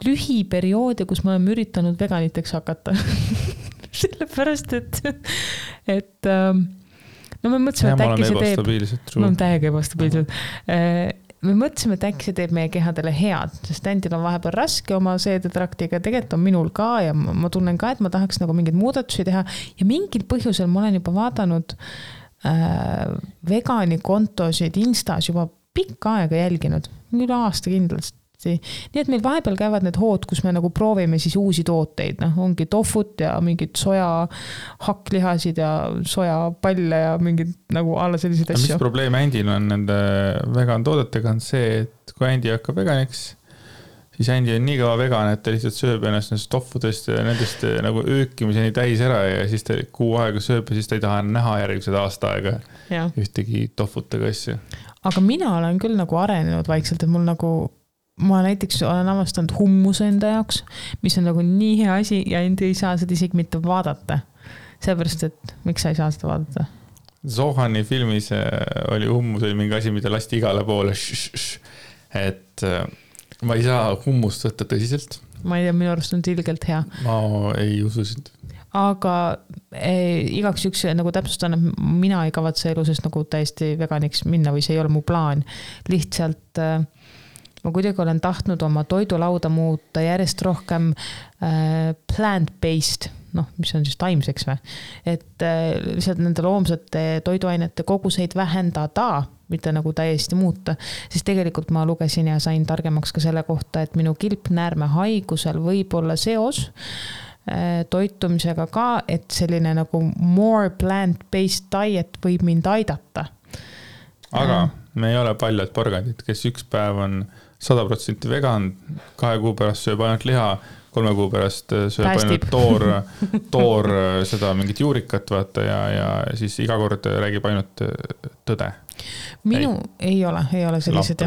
lühiperioode, kus me oleme üritanud veganiteks hakata. Sellepärast, et no me mõtlesime, et äkki see teeb... Ma olen täiega ebastabiilsed. Me mõtlesime, et äkki see teeb meie kehadele head, sest Andil on vahepeal raske oma seedetraktiga, tegelikult on minul ka ja ma tunnen ka, et ma tahaks nagu mingeid muudatusi teha ja mingil põhjusel ma olen juba vaadanud vegani kontosid Instas juba pikka aega jälginud, üle aasta kindlasti. Nii et meil vahepeal käivad need hood, kus me nagu proovime siis uusi tooteid, ongi tofut ja mingid soja hakklihasid ja soja palle ja mingid nagu alla selliseid asju. Mis probleem Andil on nende vegan toodetega on see, et kui Andi hakkab veganiks, siis Andi on nii kaua vegan, et ta lihtsalt sööb ennast nendest toffudest ja nendest nagu öökimiseni täis ära ja siis ta kuu aega sööb ja siis ta ei taha näha järgmised aasta aega ühtegi toffutega asju. Aga mina olen küll nagu arenenud vaikselt, et mul nagu ma näiteks olen avastanud hummuse enda jaoks, mis on nagu nii hea asi ja Andi ei saa seda isegi mitte vaadata. Sellepärast, et miks sa ei saa seda vaadata? Zohani filmis oli hummus oli mingi asi, mida lasti igale poole. Et ma ei saa hummust võtta tõsiselt. Ma ei tea, minu arust on ilgelt hea. Ma ei usu sind. Aga igaks üks nagu täpsustan, et mina ei kavatse elusest nagu täiesti veganiks minna või see ei ole mu plaan. Lihtsalt ma kuidagi olen tahtnud oma toidulauda muuta järjest rohkem plant-based, noh, mis on siis taimseks või, et lihtsalt nende loomsete toiduainete koguseid vähendada, mitte nagu täiesti muuta, siis tegelikult ma lugesin ja sain targemaks ka selle kohta, et minu kilpnäärme haigusel võib olla seos toitumisega ka, et selline nagu more plant-based diet võib mind aidata. Aga me ei ole paljad porgandid, kes üks päev on 100% vegan, 2 kuu pärast sööb ainult liha, 3 kuu pärast sööb ainult toor seda mingit juurikat, vaata, ja siis iga kord räägib ainult tõde. Minu ei ole sellised.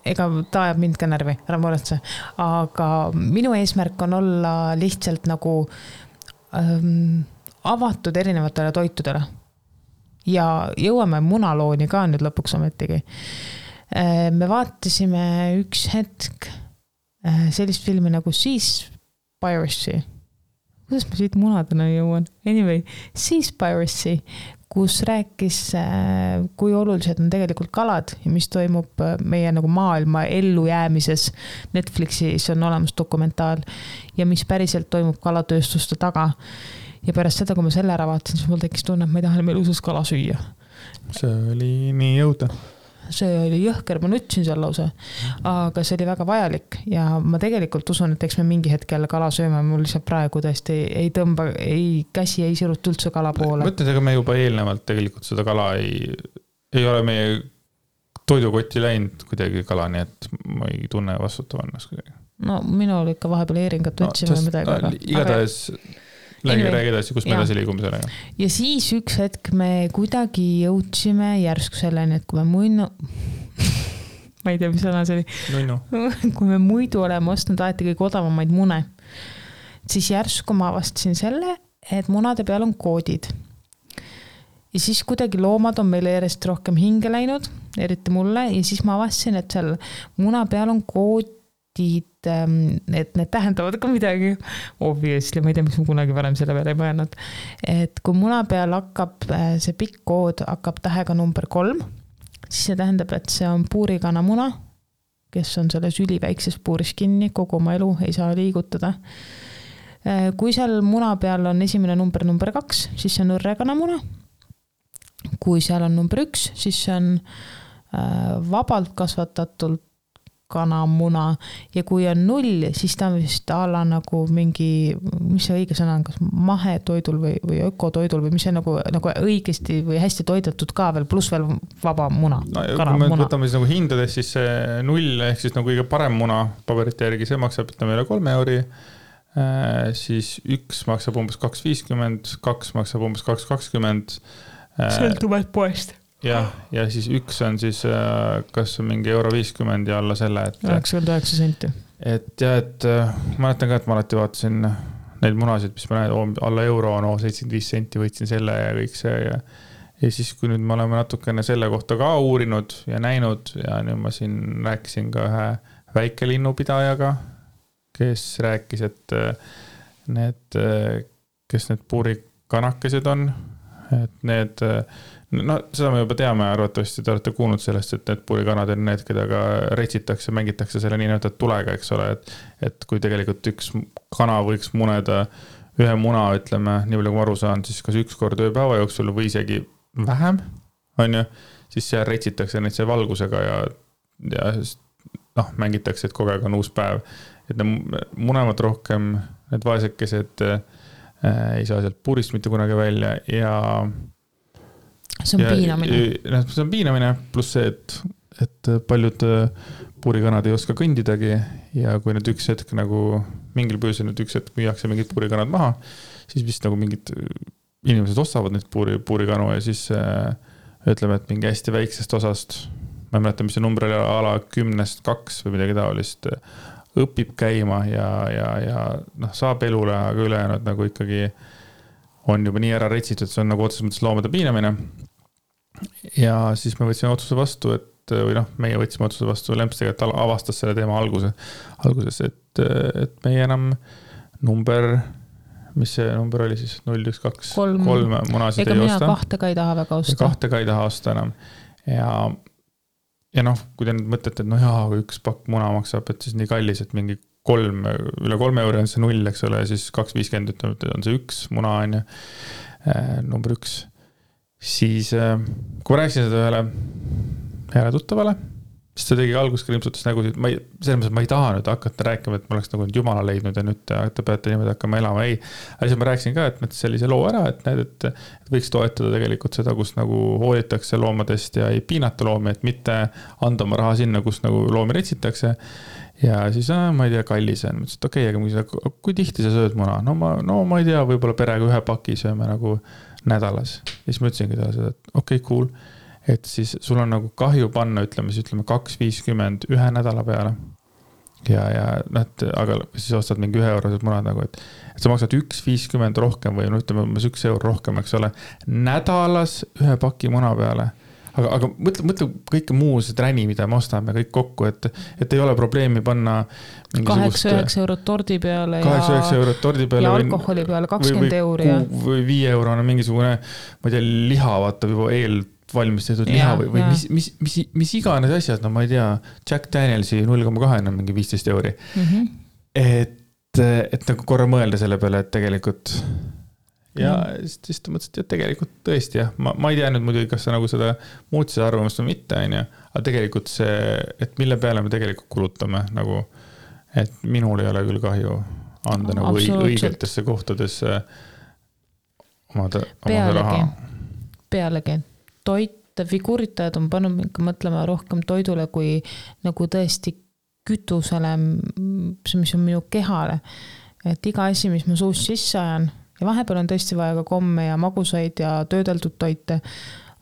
Ega ta ajab mind ka närvi, ära muretse. Aga minu eesmärk on olla lihtsalt nagu avatud erinevatele toitudele. Ja jõuame munalooni ka nüüd lõpuks ometigi. Me vaatasime üks hetk sellist filmi nagu Seaspiracy. Kuidas ma siit munadena jõuan? Anyway, Seaspiracy, kus rääkis, kui olulised on tegelikult kalad ja mis toimub meie nagu maailma ellujäämises. Netflixis on olemas dokumentaal ja mis päriselt toimub kalatööstuste taga. Ja pärast seda, kui ma selle ära vaatasin, siis mul tekkis tunne, et ma ei taha meil usus kala süüa. See oli nii jõuda. See oli jõhker, ma nutsin seal lause, aga see oli väga vajalik ja ma tegelikult usun, et eks me mingi hetk jälle kala sööme, mul lihtsalt praegu tõesti ei tõmba, käsi ei siruta üldse kala poole. Mõtlen, aga me juba eelnevalt tegelikult seda kala ei ole meie toidukotti läinud kuidagi kala, nii et ma ei tunne vastutavannas kuidagi. No minul ikka vahepeal eeringat võtsime midagi. Igatahes räägi edasi, kus me edasi liigume sellega. Ja siis üks hetk me kuidagi jõudsime järsku selleni, et kui me ma ei tea, mis sõna see oli. Kui me muidu oleme ostnud alati kõige odavamaid mune, siis järsku ma avastasin selle, et munade peal on koodid. Ja siis kuidagi loomad on meile järjest rohkem hinge läinud, eriti mulle, ja siis ma avastasin, et seal muna peal on koodid, et need tähendavad ka midagi. Obviously, ma ei tea, miks ma kunagi varem selle peale ei mõelnud. Et kui muna peal hakkab, see pikk kood hakkab tähega number 3, siis see tähendab, et see on puurikana muna, kes on selles üliväikses puuris kinni, kogu oma elu ei saa liigutada. Kui seal muna peal on esimene number 2, siis see on õrrekana muna. Kui seal on number 1, siis see on vabalt kasvatatult kanamuna ja kui on 0, siis ta on vist ala nagu mingi, mis see õige sõna on, kas mahetoidul või ökotoidul või mis see nagu õigesti või hästi toidetud ka veel, pluss veel vaba muna. No, kui me võtame siis nagu hindades, siis see 0 ehk siis nagu kõige parem muna paberite järgi, see maksab üle 3 euri, siis 1 maksab umbes 2,50, 2 maksab umbes 2,20. Sõltuvad poest. Ja siis 1 on siis kas mingi €50 ja alla selle, et 99 senti. Et ma mäletan ka, et ma alati vaatasin neid munasid, mis ma näen, alla euro on 75 senti, võitsin selle ja kõik see ja siis kui nüüd me oleme natukene selle kohta ka uurinud ja näinud ja nüüd ma siin rääkisin ka ühe väikelinnupidajaga, kes rääkis, et kes need puurikanakesed on, et need no seda me juba teame, arvatavasti te olete kuulnud sellest, et need puurikanad on need, keda ka retsitakse, mängitakse selle nii näitud tulega, eks ole, et kui tegelikult üks kana võiks muneda ühe muna, ütleme, nii palju kui ma aru saan, siis kas 1 kord ööpäeva jooksul või isegi vähem, on ju, siis seal retsitakse neid see valgusega ja mängitakse, et kogu aeg on uus päev. Et need munevad rohkem, need vaesekesed ei saa sealt puurist mitte kunagi välja ja see on piinamine. See on piinamine, pluss see, et paljud puurikanad ei oska kõndidagi ja kui need üks hetk nagu mingil põhjusel nüüd üks hetk müüakse mingid puurikanad maha, siis vist nagu mingid inimesed ostavad neid puurikanu ja siis ütleme, et mingi hästi väiksest osast, ma ei mäleta, mis see number oli, ala 10-2 või midagi taolist, õpib käima ja saab elule, aga ülejäänud nagu ikkagi on juba nii ära retsitud, see on nagu otseses mõttes loomade piinamine. Ja siis me võtsime otsuse vastu, meie võtsime otsuse vastu, Lempstega, et avastas selle teema alguses, et meie enam mis see number oli siis, 0, 1, 2, 3 munasid ei osta. Ega mina 2 ka ei taha väga osta. 2 ka ei taha osta enam. Ja kui te nüüd mõtlete, et kui 1 pakk muna maksab, et siis nii kallis, et mingi üle 3 euro on see 0, eks ole, ja siis 2,50 ütleme, on see 1 muna on ju, number 1. Siis kui ma rääkisin seda ühele heale tuttavale, siis ta tegi alguses krimpsutas nägusid, selles mõttes, ma ei taha nüüd hakata rääkima, et ma oleks nagu jumala leidnud ja nüüd te peate niimoodi hakkama elama, ei. Aga siis ma rääkisin ka, et mõttes sellise loo ära, et näed, et võiks toetada tegelikult seda, kus nagu hoolitakse loomadest ja ei piinata loomi, et mitte anda oma raha sinna, kus nagu loomi retsitakse. Ja siis, ma ei tea, kallis on, mõtlesin, et okei, aga kui tihti sa sööd muna? No ma ei tea, võib-olla perega 1 paki sööme nagu nädalas. Ja siis ma ütlesingi talle seda, et okei, cool. Et siis sul on nagu kahju panna, ütleme 2,50 1 nädala peale. Ja aga siis ostad mingi 1 eurosed munad nagu, et sa maksad 1,50 rohkem või ütleme 1 euro rohkem, eks ole, nädalas 1 paki muna peale. Aga mõtle kõike muu see träni, mida me ostame kõik kokku, et ei ole probleemi panna 8-9 eurot tordi peale 8-9 eurot tordi peale ja alkoholi peale 20 euri. Või 5 euro on mingisugune, ma ei tea, liha vaatab juba valmistatud liha või mis iganes asjad, no ma ei tea, Jack Danielsi 0,2 on mingi 15 euri. Et nagu korra mõelda selle peale, et tegelikult ja siis ta mõtles, et tegelikult tõesti jah, ma ei tea nüüd muidugi, kas sa nagu seda muutsid arvamust või mitte, aga tegelikult see, et mille peale me tegelikult kulutame, nagu, et minul ei ole küll kahju anda nagu õigetesse kohtadesse omada raha. Pealegi. Toit, figuuritajad on pannud mingi mõtlema rohkem toidule kui nagu tõesti kütusele, mis on minu kehale. Et iga asi, mis ma suust sisse ajan, ja vahepeal on tõesti vaja ka komme ja magusaid ja töödeldud toite,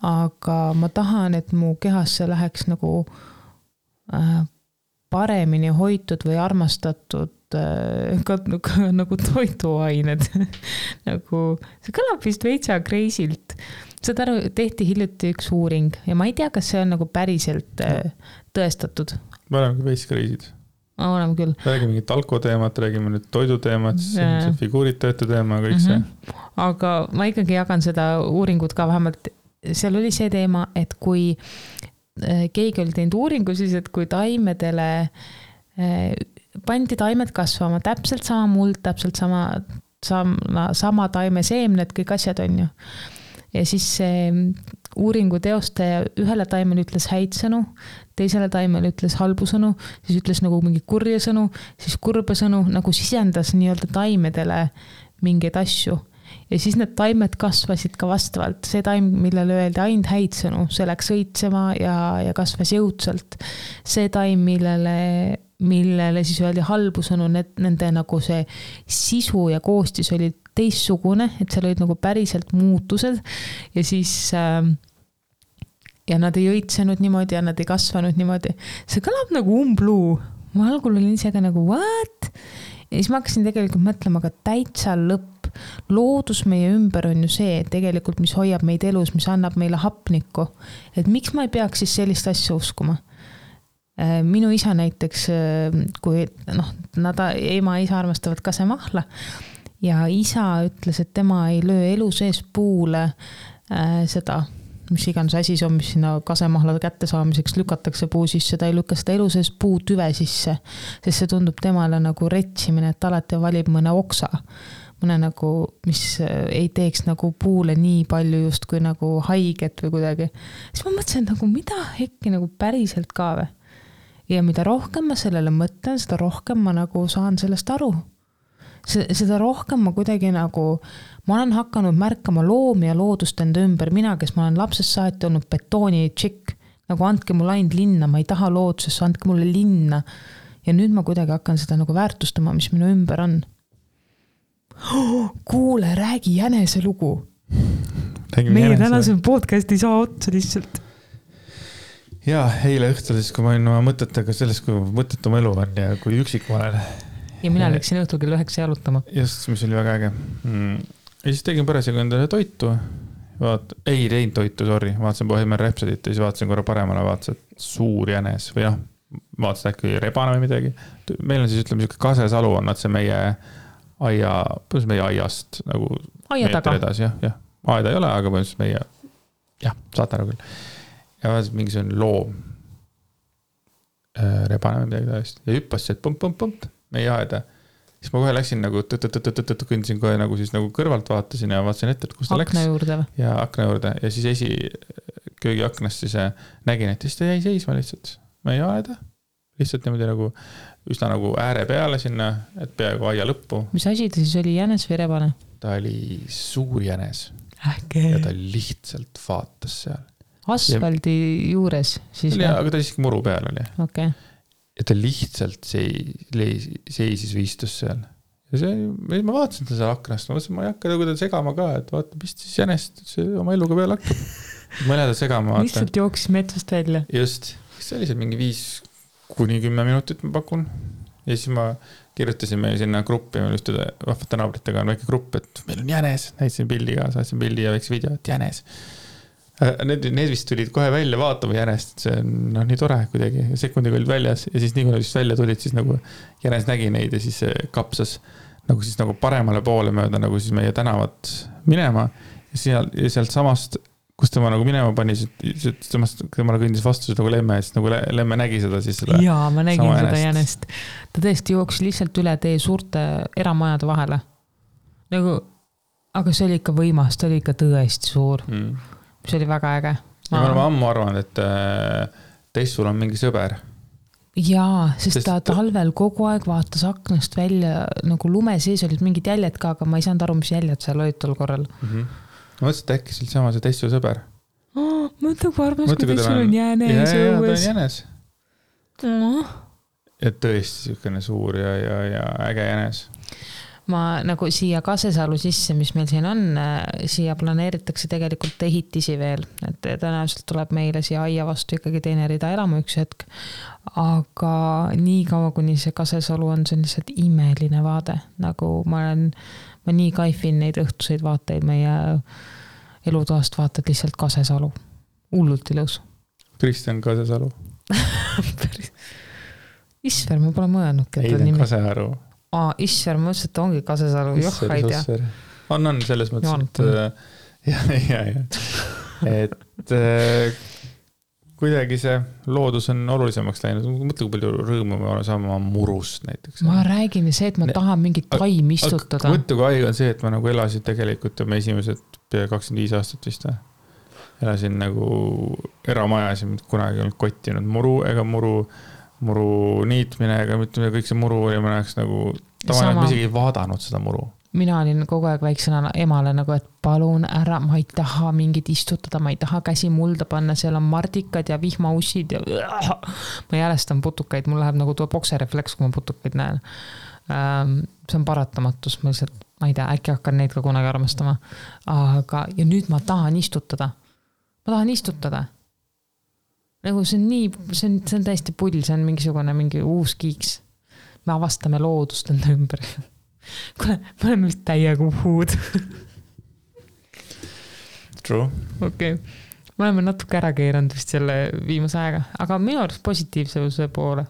aga ma tahan, et mu kehasse läheks nagu paremini hoitud või armastatud nagu toiduained. Nagu, see kõlab vist veitsa crazy'lt. Seda tehti hiljuti üks uuring ja ma ei tea, kas see on nagu päriselt tõestatud. Me oleme veits crazy'd. Oleme küll. Räägime mingit alkoteemat, räägime nüüd toiduteemat, see figuuritajate teema, kõik see. Aga ma ikkagi jagan seda uuringut ka vähemalt. Seal oli see teema, et kui keegi oli teinud uuringu, siis et kui taimedele pandi taimed kasvama, täpselt sama muld, täpselt sama taime seemned, kõik asjad on ju. Ja siis see uuringu teostaja ühele taimele ütles häid sõnu, teisele taimele ütles halbu sõnu, siis ütles nagu mingi kurja sõnu, siis kurba sõnu, nagu sisendas nii-öelda taimedele mingeid asju. Ja siis need taimed kasvasid ka vastavalt. See taim, millele öeldi ainult häid sõnu, see läks õitsema ja kasvas jõudsalt. See taim, millele siis öeldi halbu sõnu, nende nagu see sisu ja koostis oli teistsugune, et seal olid nagu päriselt muutused ja siis ja nad ei õitsenud niimoodi ja nad ei kasvanud niimoodi. See kõlab nagu umbluu. Ma algul olin ise ka nagu what? Ja siis ma hakkasin tegelikult mõtlema ka täitsa lõpp. Loodus meie ümber on ju see, tegelikult mis hoiab meid elus, mis annab meile hapnikku. Et miks ma ei peaks siis sellist asja uskuma? Minu isa näiteks, kui ema ja isa armastavad kasemahla ja isa ütles, et tema ei löö elu sees puule seda, mis iganes asi see on, mis sinna kasemahla kätte saamiseks lükatakse puu sisse, ta ei lükka seda elu sees puu tüve sisse, sest see tundub temale nagu retsimine, et alati valib mõne oksa, mõne nagu, mis ei teeks nagu puule nii palju just kui nagu haiget või kuidagi. Siis ma mõtlesin nagu, mida hekki nagu päriselt ka või? Ja mida rohkem ma sellele mõtlen, seda rohkem ma nagu saan sellest aru. Seda rohkem ma kuidagi nagu, ma olen hakanud märkama loomi ja loodust enda ümber. Mina, kes ma olen lapsest saati olnud betooni tšikk, nagu andke mulle ainult linna, ma ei taha loodusesse, andke mulle linna. Ja nüüd ma kuidagi hakkan seda nagu väärtustama, mis minu ümber on. Kuule, räägi jänese lugu. Meie tänase podcast ei saa otsa lihtsalt. Ja, eile õhtul siis, kui ma olin oma mõtetega sellest, kui mõttetum elu on ja kui üksik ma olen. Ja mina läksin õhtul kell 9 jalutama. Just, mis oli väga äge. Ja siis tegin parasjagu endale toitu. Ei teinud toitu, sorry. Vaatasin Bohemian Rhapsodyt ja siis vaatasin korra paremale, vaatasin, et suur jänes või jah, vaatasin äkki rebane või midagi. Meil on siis, ütleme, kasesalu on nad see meie aiast nagu meetri edasi. jah. Aeda ei ole, aga põhimõtteliselt meie, jah, saate ära küll. Ja vaatasin mingisugune loom rebane või midagi täiesti. Ja hüppas see, et pump. meie aeda. Siis ma kohe läksin nagu kõndisin kohe nagu siis nagu kõrvalt vaatasin ja vaatasin ette, et kus ta läks. Akna juurde või? Ja akna juurde ja siis köögi aknast siis nägin, et siis ta jäi seisma lihtsalt meie aeda. Lihtsalt niimoodi nagu üsna nagu ääre peale sinna, et peaaegu aia lõppu. Mis asi ta siis oli, jänes või rebane? Ta oli suur jänes. Ähke. Ja ta lihtsalt vaatas seal. Asfaldi juures siis või? Aga ta siiski muru peal oli. Okay. Ja ta lihtsalt seisis või istus seal. Ja ma vaatasin ta seal aknast, ma mõtlesin, ma ei hakka nagu ta segama ka, et vaata, mis siis jänest oma eluga peale hakkab. Ma ei lähe ta segama. Lihtsalt jooksis metsast välja. Just. See oli see mingi 5-10 minutit ma pakun. Ja siis ma kirjutasin meil sinna gruppi, meil ühtude vahvate naabritega on väike grupp, et meil on jänes. Näitasin pildi ka, saatsin pildi ja väikse video, et jänes. Need vist tulid kohe välja vaatama jänest, see on nii tore kuidagi, sekundiga olid väljas ja siis nii kui nad vist välja tulid, siis nagu jänes nägi neid ja siis kapsas nagu paremale poole mööda nagu siis meie tänavat minema ja sealt samast, kus tema nagu minema pani, tema kõndis vastu nagu lemme ja siis nagu lemme nägi seda siis seda. Jaa, ma nägin seda jänest. Ta tõesti jooksis lihtsalt üle tee suurte eramajade vahele. Nagu, aga see oli ikka võimas, ta oli ikka tõesti suur. See oli väga äge. Ja ma olen ammu arvanud, et teist sul on mingi sõber. Jaa, sest ta talvel kogu aeg vaatas aknast välja, nagu lume sees olid mingid jäljed ka, aga ma ei saanud aru, mis jäljed seal olid tol korral. Ma mõtlesin, et äkki sul sama see teist sul sõber. Mõtle, kui armas, kui teist sul on jänes. Jaa, ta on jänes. Et tõesti siukene suur ja äge jänes. Ma nagu siia Kasesalu sisse, mis meil siin on, siia planeeritakse tegelikult ehitisi veel, et tõenäoliselt tuleb meile siia aia vastu ikkagi teine rida elama üks hetk, aga nii kaua, kuni see Kasesalu on, see on lihtsalt imeline vaade, nagu ma nii kaifin neid õhtuseid vaateid, meie elutoast vaatad lihtsalt Kasesalu, hullult ilus. Kristjan Kasesalu. Isver, ma pole mõelnud. Ei, ta on Kasearu. Isver, ma ütlesin, et ongi Kasesalu, joh, ei tea. On selles mõttes, et kuidagi see loodus on olulisemaks läinud. Mõtle, kui palju rõõmu me oleme saama murust näiteks. Ma räägin see, et ma tahan mingit taim istutada. Mõtle, kui haige on see, et ma nagu elasin tegelikult ja me esimesed pea 25 aastat vist. Elasin nagu eramajas ja kunagi ei olnud kottinud muru ega muru niitmine, ega mitte kõik see muru oli, ma näeks nagu, tavaliselt ma isegi ei vaadanud seda muru. Mina olin kogu aeg väiksena emale nagu, et palun ära, ma ei taha mingit istutada, ma ei taha käsi mulda panna, seal on mardikad ja vihmaussid ja ma jälestan putukaid, mul läheb nagu tuo bokserefleks, kui ma putukaid näen. See on paratamatus, ma lihtsalt, ma ei tea, äkki hakkan neid ka kunagi armastama. Aga, ja nüüd ma tahan istutada. Nagu see on täiesti pull, see on mingi uus kiiks. Me avastame loodust enda ümber. Kuule, me oleme vist täiega uhuud. True. Okay. Me oleme natuke ära keeranud vist selle viimase aega, aga minu arust positiivsuse poole.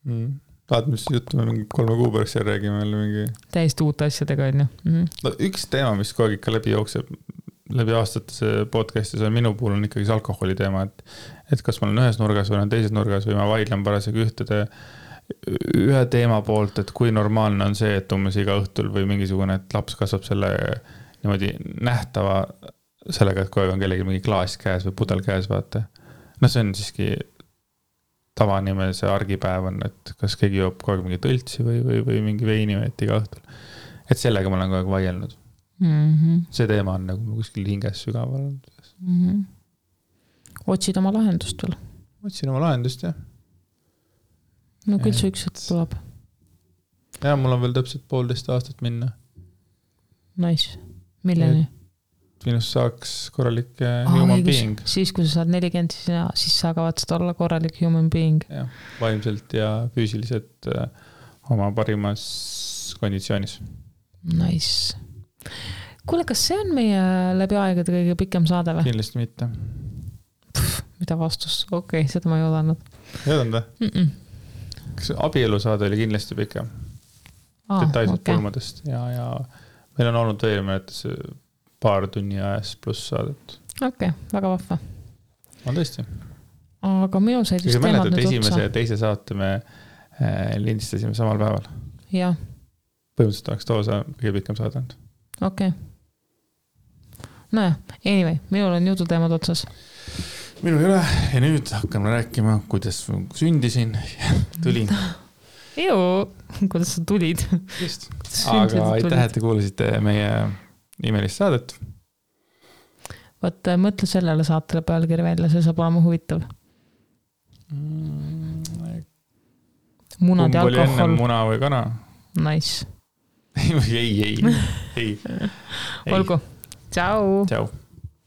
Tahad, mis juttu me mingi 3 kuu pärast seal räägime mingi... Täiesti uute asjadega on ju. No, üks teema, mis kogu ikka läbi jookseb läbi aastate see podcastis on minu puhul on ikkagi see alkoholi teema, et kas ma olen ühes nurgas või olen teises nurgas või ma vaidlen parasjagu ühe teema poolt, et kui normaalne on see, et umbes iga õhtul või mingisugune, et laps kasvab selle niimoodi nähtava sellega, et kogu aeg on kellegi mingi klaas käes või pudel käes, vaata. No see on siiski tavanime see argipäev on, et kas keegi joob kogu aeg mingi tõltsi või mingi veini või et iga õhtul. Et sellega ma olen kogu aeg vaielnud. See teema on nagu kuskil hinges sügaval. Otsid oma lahendust veel? Otsin oma lahendust, jah. No küll see üks hetk tuleb. Ja, mul on veel täpselt 1,5 aastat minna. Nice. Milleni? Minust saaks korralik human being. Siis, kui sa saad 40, siis sa kavatsed olla korralik human being. Ja, vaimselt ja füüsiliselt oma parimas konditsioonis. Nice. Kuule, kas see on meie läbi aegade kõige pikem saade või? Kindlasti mitte. Mida vastus? Okei, seda ma ei oodanud. Ei oodanud? Kas abielusaade oli kindlasti pikem? Detailselt pulmadest. Ja meil on olnud veel mõnetes paar tunni ajas pluss saadet. Okei, väga vahva. On tõesti. Aga minu said just teemad nüüd otsa. Esimese ja teise saate me lindistasime samal päeval. Jah. Põhimõtteliselt oleks too see kõige pikem saade olnud. Okei. Nojah, anyway, minul on jututeemad otsas. Minul ei ole ja nüüd hakkame rääkima, kuidas sündisin ja tulin. Kuidas sa tulid? Just. Aga aitäh, et te kuulasite meie imelist saadet. Võt, mõtle sellele saatele pealkiri välja, see saab olema huvitav. Munad ja alkohol. Kumb oli enne, muna või kana? Nice. ei. Olgu. Ciao. Ciao.